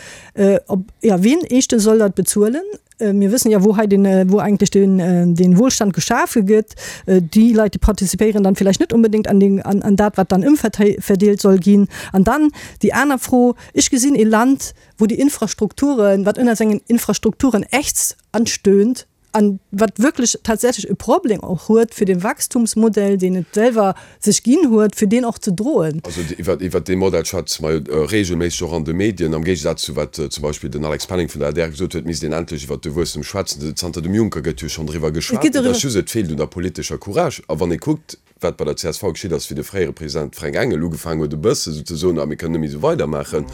ob, ja, wien éischtens soll dat bezuelen? Mir wëssen ja, wou hei den, wou eigentlech den, den Wohlstand geschafe gëtt. Déi Leit, déi participéieren dann vielleicht net unbedéngt an den, an, an dat, wat dann ëmverdeelt soll ginn. An dann déi aner Fro, Ech gesinn ee Land, wou déi Infrastrukturen, wat ënner sengen Infrastrukturen ächzt an stöhnt an wat wierklech tatsächlech e Problem och huet, fir de Wachstumsmodell, deen et selwer sech ginn huet, fir deen och ze droen. Also iwwer, iwwert dee Modell schwätze mer jo regelméisseg och an de Medien. Am Géigesaz zu wat zum Beispill den Alex Penning vun der adr gesot huet, misst een endlech iwwert de Wuesstem schwätzen. Zanter dem Juncker gëtt jo schonn driwwer geschwat. Et ass just, et feelt un der politescher Courage. A wann ee kuckt, wat bei der csv geschitt ass, wéi de fréiere President Fränk Engel ugefaangen huet e bësse sou ze soen, ah mir kënnen net méi esou weidermaachen,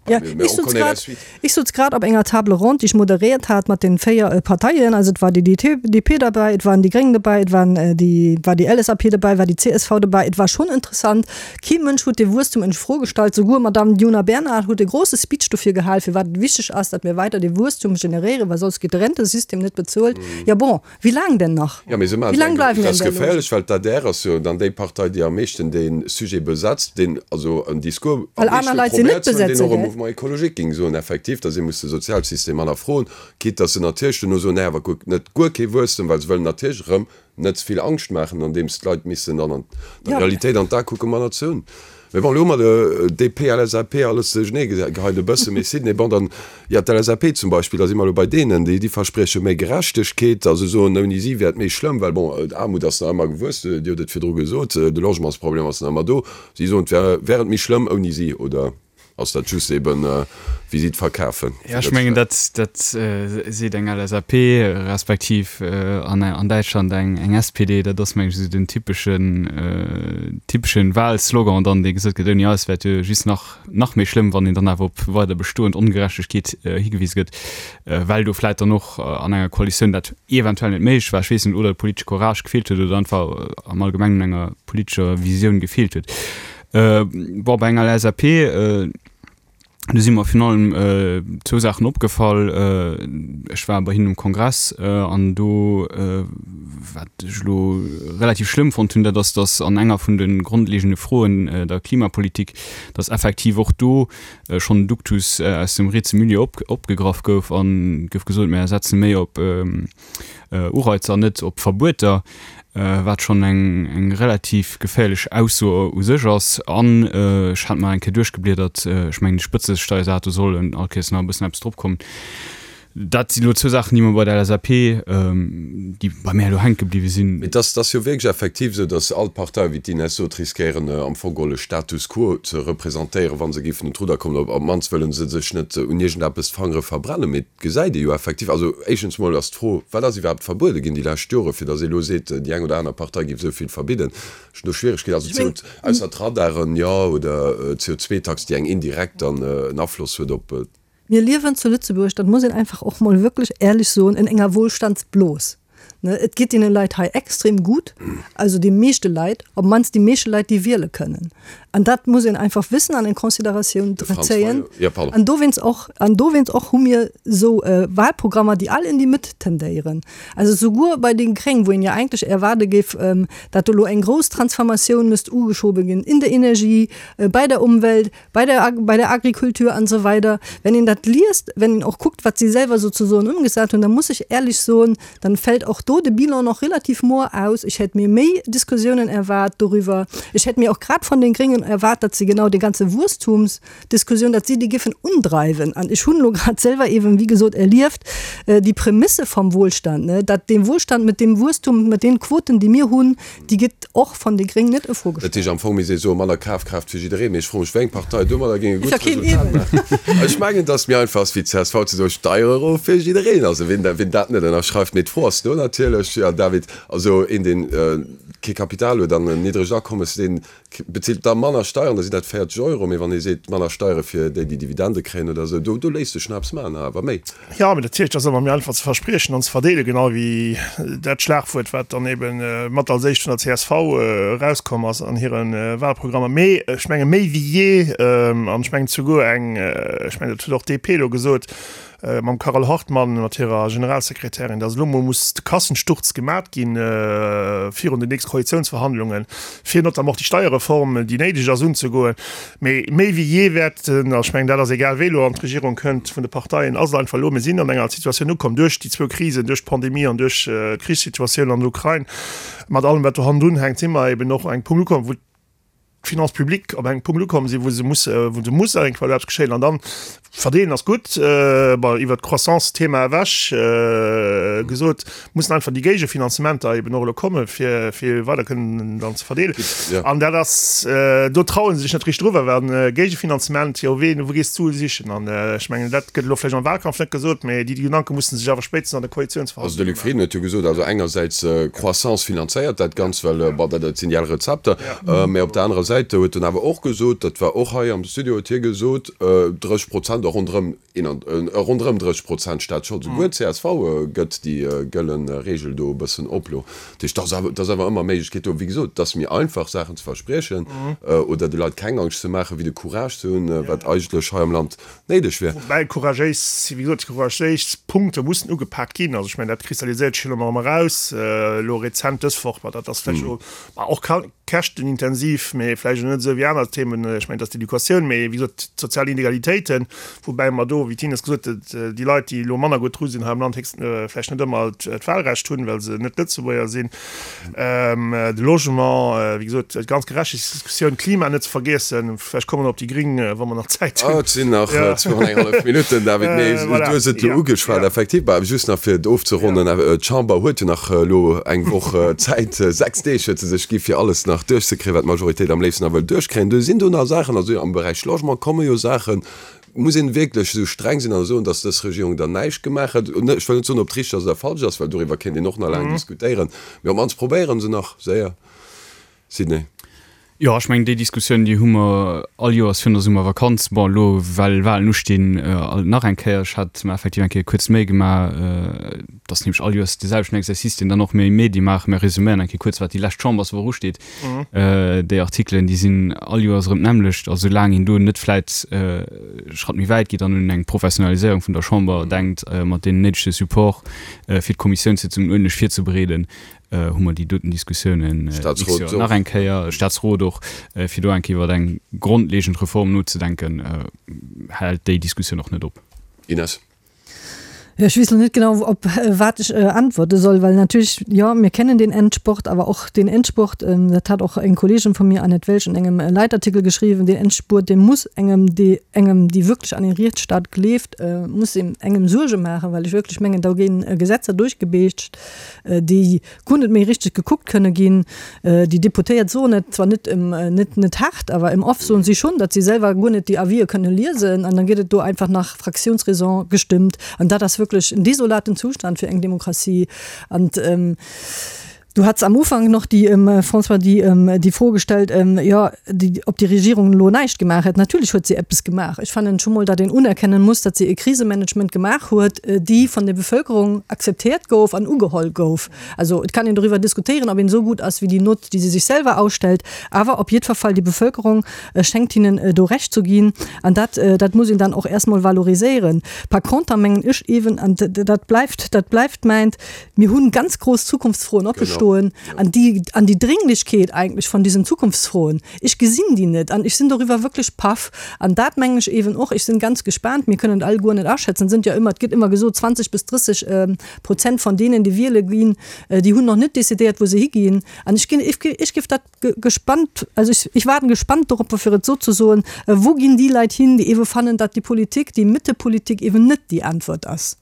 Ja, ich sutz grad, ich sutz grad op enger Table ronde, déi ech moderéiert hat mat den 4 Parteien, also et war déi DP derbäi, et waren déi Gréng derbäi, et waren déi, war déi LSAP derbäi, war déi csv derbäi. Et war schonn interessant. Kee Mënsch huet de Wuesstum in Fro gestallt. Souguer Madamm Djuna Bernard huet e grosse Speech dofir gehal, firwat et wichteg ass, datt mir weider de Wuesstum generéieren, well soss gétt de Rentesystem net bezuelt. Ja bon, Wéi laang denn nach? Jo, mee se maachen et enk. Dat ass geféierlech, well d'ADR ass jo dann déi Partei, déi am meeschten dee Sujet besetzt, deen also en Discours am meeschte probéiert ze hunn, deen och e Mouvement écologique géing soen, effektiv, datt ee muss de Sozialsystem hannerfroen, quitte datt se natierlech duerno soen, nee, awer kuck, net guer kee Wuesstem, well se wëllen natierlech erëm net ze vill Angscht maachen, andeems d'Leit missen dann an der Realitéit an d'A kucken, manner ze hunn. Mee bon, elo hu mer de DP, LSAP, alles duerchenee geheit e bësse. Mee Sidney, bon, dann, jo, d'LSAP zum Beispill, da si mer elo bei deenen, déi, déi versprieche méi Gerechtegkeet a se soen, ouni si wär et méi schlëmm, well bon, d'Aarmut ass nach ëmmer gewuess, Dir hutt et virdru gesot, de Logementsproblem ass nach ëmmer do. Si soen, et wär, wär et méi schlëmm ouni si, oder? Ass dat just eben wéi si et verkafen? Jo, ech mengen dat dat seet eng LSAP respektiv an an Däitschland eng eng SPD. Dat ass meng ech esou den typeschen typeschen Wahlslogan dann, dee gesot gëtt, ouni eis wär et jo just nach nach méi schlëmm, wann een dann awer op weider bestoend Ongerechtegkeet higewise gëtt, well do vläit dann och an enger Koalitioun dat eventuell net méiglech war, ech weess net, oder de politesche Courage gefeelt huet oder einfach am Allgemengen un enger politescher Visioun gefeelt huet. Bon, bei enger LSAP, do si mer virun allem zwou Saachen opgefall. Ech war bei hinnen um Kongress an do, wat ech elo relativ schlëmm fonnt hunn, dat ass, datt an enger vun de grondlegende Froen, der Klimapolitik, datt effektiv och do schonn en Duktus aus dem rietse Milieu opgegraff gouf a gouf gesot, mir setze méi op Ureizer an net op Verbueter, wat schonn eng eng relativ geféierlech Ausso u sech ass. An ech hat mer eng Kéier duerchgebliedert, ech mengen de Spëtzesteiersaz, do soll all Kéiers nach e bëssen eppes dropkommen. Dat si lo zwou Saachen, déi mer bei der LSAP, déi bei mär elo hänke bliwwe sinn. Mee et ass jo wierklech effektiv esou, datt all d'Parteien, wéi d'Ines sot, riskéieren am Fong geholl e Status quo ze representéieren, wa se géifen un d'Rudder kommen. Op d'mannst wëlle se sech net un iergendeppes d'Fangere verbrennen. Mee et gesäit ee jo effektiv, also éischtens mol ass d'Fro, Wat ass iwwerhaapt verbuede ginn déi lescht Jore, fir datt ee elo seet, déi eng oder aner Partei géif esou vill verbidden? Ech hunn do Schwieregkeeten, also CO, ausser d'Radaren, jo, oder d'CO2-Tax, déi eng indirekt dann en Afloss huet op. Mir liewen zu Lëtzebuerg, dat muss een einfach och mol wierklech éierlech soen, in enger Wohlstandsblos. Et geet deene Leit hei extrem gutt, also de meeschte Leit, op d'mannst déi meeschte Leit, déi wiele kënnen. An dat muss een einfach wëssen an en Consideratioun zéien. An dowéinst och, an dowéinst och hu mir esou Wahlprogrammer, déi all in déi Mëtt tendéieren. Also souguer bei den Gréng, wou een jo eigentlech erwaarde géif, dat do elo eng grouss Transformatioun misst ugeschobe ginn in der Energie, bei der Umwelt, bei der, bei der Agrikultur an esou weider, wenn een dat liest, wenn een och kuckt, wat si selwer sozusoen ëmgesat hunn, da muss ech éierlech soen, dann fällt och do de Bilan noch relativ moer aus. Ech hätt mir méi Diskussiounen erwaart doriwwer. Ech hätt mir och grad von den Gréngen erwaart, datt se genau déi ganze Wuesstumsdiskussioun, datt si déi giffen undreiwen. An ech hunn elo grad selwer eeben, wéi gesot, erlieft, déi Prämisse vom Wohlstand, ne, datt dee Wohlstand mit dem Wuesstum, mit den Quoten, déi mir hunn, Déi gëtt och von de Gréng net a Fro Dat heescht gestallt. am Fong misst ee soen, manner Kafkraaft fir jiddereen. Mee ech froe mech, wéi eng Partei domadder géing e gutt Resultat maachen. Ech mengen, datt méi einfach ass wéi csv ze soen, Steiere erof fir jiddereen. Also wien wien dat net ënnerschreift. Mee d'Fro ass do natierlech, jo David, also een deen kee Kapital huet an en niddregt Akommes, deen bezilt da manner Steieren, da sinn dat 40 Euro. Mee wann ee seet, manner Steiere fir déi, déi Dividende kréien oder esou, do do léisst sech nach eppes maachen, awer méi. Jo, mee natierlech, dat ass ëmmer méi einfach ze verspriechen an ze verdeelen, genau wéi dat Schlagwuert, wat dann ebe mat als éischt vun der csv erauskomm ass an hire Wahlprogrammer. Mee ech menge méi wéi jee, an ech mengen souguer eng, ech mengen dat huet och d'DP elo gesot mam Carole Hartmann, mat hirer Generalsekretärin, datt elo mol muss de Kassensturz gemat ginn virun den nächste Koalitiounsverhandlungen, fir notamment och déi Steierreform, déi néideg ass, unzegoen. Mee méi wéi jee wäerten, a ech mengen, dat ass egal wéi elo an d'Regierung kënnt vun de Parteien, ass et einfach elo, mir sinn an enger Situatioun ukomm duerch déi zwou Krisen, duerch d'Pandemie an duerch d'Krichssituatioun an der Ukrain, mat allem wat do hannendrun hänkt, si mer eben och un engem Punkt ukomm, wou d'Finances publiques op engem Punkt ukomm sinn, wou se musse, wou se muss iergendwann eppes geschéien. An dann, verdeelen ass gutt, bon, iwwert d'Croissance-Thema ewech gesot, mussen einfach déi Géigefinanzementer eben och elo kommen, fir, fir weider kënnen dann ze verdeelen. Ja. An dat ass, do traue se sech net richteg driwwer, well Géigefinanzement, jo ween, wou gees d'Sue sichen? An ech mengen, dat gëtt elo vläicht am Wahlkampf net gesot, mä déi Gedanke musse sech awer spéitstens an de Also de Luc Frieden huet jo gesot, also engersäits Croissance finanzéiert dat Ganzt, well bon, dat, dat sinn déi al Rezepter, mä op der anerer Säit huet en awer och gesot, dat war och hei am Studio, huet hie gesot, 30 Prozent a ronderëm Ronderëm 30 Prozent Staatsschold. Souguer d'CSV gëtt déi gëlle Reegel do e bëssen op elo. Dat heescht, et ass awer ëmmer Méiglechkeet do. Wéi gesot, et ass méi einfach Saachen ze verspriechen oder de Leit keng Angscht ze maachen, wéi de Courage ze hunn, wat eigentlech hei am Land néideg wier. Woubäi couragéis, wéi gesot, couragéis Punkte mussen ugepak ginn. Also ech mengen, dat kristalliséiert sech jo elo nach ëmmer eraus, elo rezent dës Woch, ma dat ass vläicht elo och käschtenintensiv, mee vläicht och net esou wéi aner Themen, ech mengen, et ass d'Educatioun, mee wéi gesot, d'sozial Inegalitéiten, woubäi mer do, wéi d'Ines gesot huet, déi Leit, déi elo manner gutt dru sinn hei am Land, héchst vläicht net ëmmer d'Wahlrecht hunn, well se net Lëtzebuerger sinn, de Logement, wéi gesot, d'ganz Gerechtegkeetsdiskussioun, d'Klima net ze vergiessen. Vläicht komme mer op déi Gring, wa mer nach Zäit hunn. Et sinn nach zwou an eng hallef Minutten, David, mee du hues et elo ugeschwat, effektiv. Bah, just nach fir et ofzeronnen, D'Chamber huet jo nach elo eng Woch Zäit, 6 Deeg huet se sech gi fir alles nach duerchzekréien, wat d'Majoritéit am léifsten nach wëll duerchkréien. Do sinn do nach Saachen, also am Beräich Logement komme jo Saachen. Muss een wierklech esou streng sinn a soen, datt dës Regierung dann näischt gemaach huet? Ech wëll net soen, ob et richteg ass oder falsch ass, well doriwwer kéint een och nach laang diskutéieren, mee op d'mannst probéiere se nach séier. Sidney. Jo, ech mengen, déi Diskussioun, déi hu mer all Joers virun der Summervakanz. Bon, elo, well Wahlen ustinn, alt nach eng Kéier. Ech hat mer effektiv eng Kéier kuerz d'Méi gemaach, et ass nämlech all Joers dee selwechten Exercice, deen dann och mir Medie maachen, Mir resuméieren eng Kéier kuerz, wat déi lescht Chamberswoch usteet. Déi Artikelen, déi sinn all Joers erëm d'nämmlecht. A soulaang een do net vläit e Schratt méi wäit geet an un eng Professionaliséierung vun der Chamber denkt, mat deem néidege Support, fir d'Kommissiounssitzungen uerdentlech virzebereeden, hu mer déi doten Diskussiounen d'nächst Joer nach eng Kéier, Staatsrot och, fir do eng Kéier iwwer eng grondlegend Reform nozedenken, hält déi Diskussioun och net op. Ines. Ja, ech weess lo net genau, op wat ech äntwerte soll, well natierlech, jo, mir kennen den Endspurt, awer och den Endspurt, dat hat och eng Kolleegin vu mir, Annette Welsch, an engem Leitartikel geschriwwen, den Endspurt, dee muss engem, dee engem, déi wierklech an een Rietsstaat gleeft, muss engem Suerge maachen, well ech wierklech mengen, do gi Gesetzer duerchgebeetscht, déi guer net méi richteg gekuckt kënne ginn. Déi Deputéiert soen et zwar net, net, net haart, awer im Off soen si schonn, datt si selwer guer net déi Avisë kënne liesen an dann gëtt et do einfach nach Fraktiounsraison gestëmmt. An dat ass wierklech en desolaten Zustand fir eng Demokratie. An du hats am Ufank nach déi, François, déi, déi Fro gestellt, jo, déi, ob déi Regierung elo näischt gemaach hätt. Natierlech huet si eppes gemaach. Ech fannen scho mol, datt een unerkennen muss, datt si e Krisemanagement gemaach huet, déi vun der Bevölkerung akzeptiert gouf an ugeholl gouf. Also et kann een doriwwer diskutéieren, ob een esou gutt ass wéi déi Nott, déi si sech selwer ausstellt, awer op jiddwer Fall, déi Bevölkerung schéngt hinnen do Recht zu ginn an dat, dat muss een dann och erst mol valoriséieren. Par conter mengen ech eeben, an dat bleift, dat bleift mäint, mir hunn ganz grouss Zukunftsfroen oppe stoen an déi, an déi Dringlichkeet eigentlech von diesen Zukunftsfroen, ech gesinn déi net an ech sinn doriwwer wierklech paff. An dat mengen ech eeben och, ech sinn ganz gespaant, mir kënnen et alleguer net aschätzen, et sënn jo ëmmer, et gëtt ëmmer gesot 20 bis 30 Prozent von deenen, déi wiele ginn, déi hunn nach net decidéiert, wou se higinn. An ech ginn, ech géif dat gespannt, also ech, ech waarden gespannt doropper, fir et esou ze soen, wou ginn déi Leit hin, déi eebe fannen, datt déi Politik, déi Mëttepolitik eeben net déi Äntwert ass.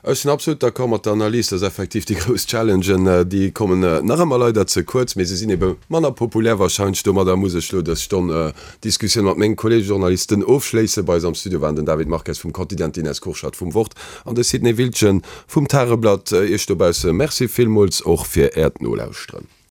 Ech sinn absolut d'accord mat der Analys, dass effektiv déi grouss Challengen, déi kommen nach ëmmer leider ze kuerz, mee se sinn ebe manner populär wahrscheinlech. Domadder muss ech elo dës Stonn Diskussioun mat menge Kollege Journalisten ofschléissen. Bei eis am Studio waren den David Marques vum Quotidien, d'Ines Kurschat vum Wort an de Sidney Wiltgen vum Tageblatt. Iech dobausse Merci villmools och fir Äert Nolauschteren.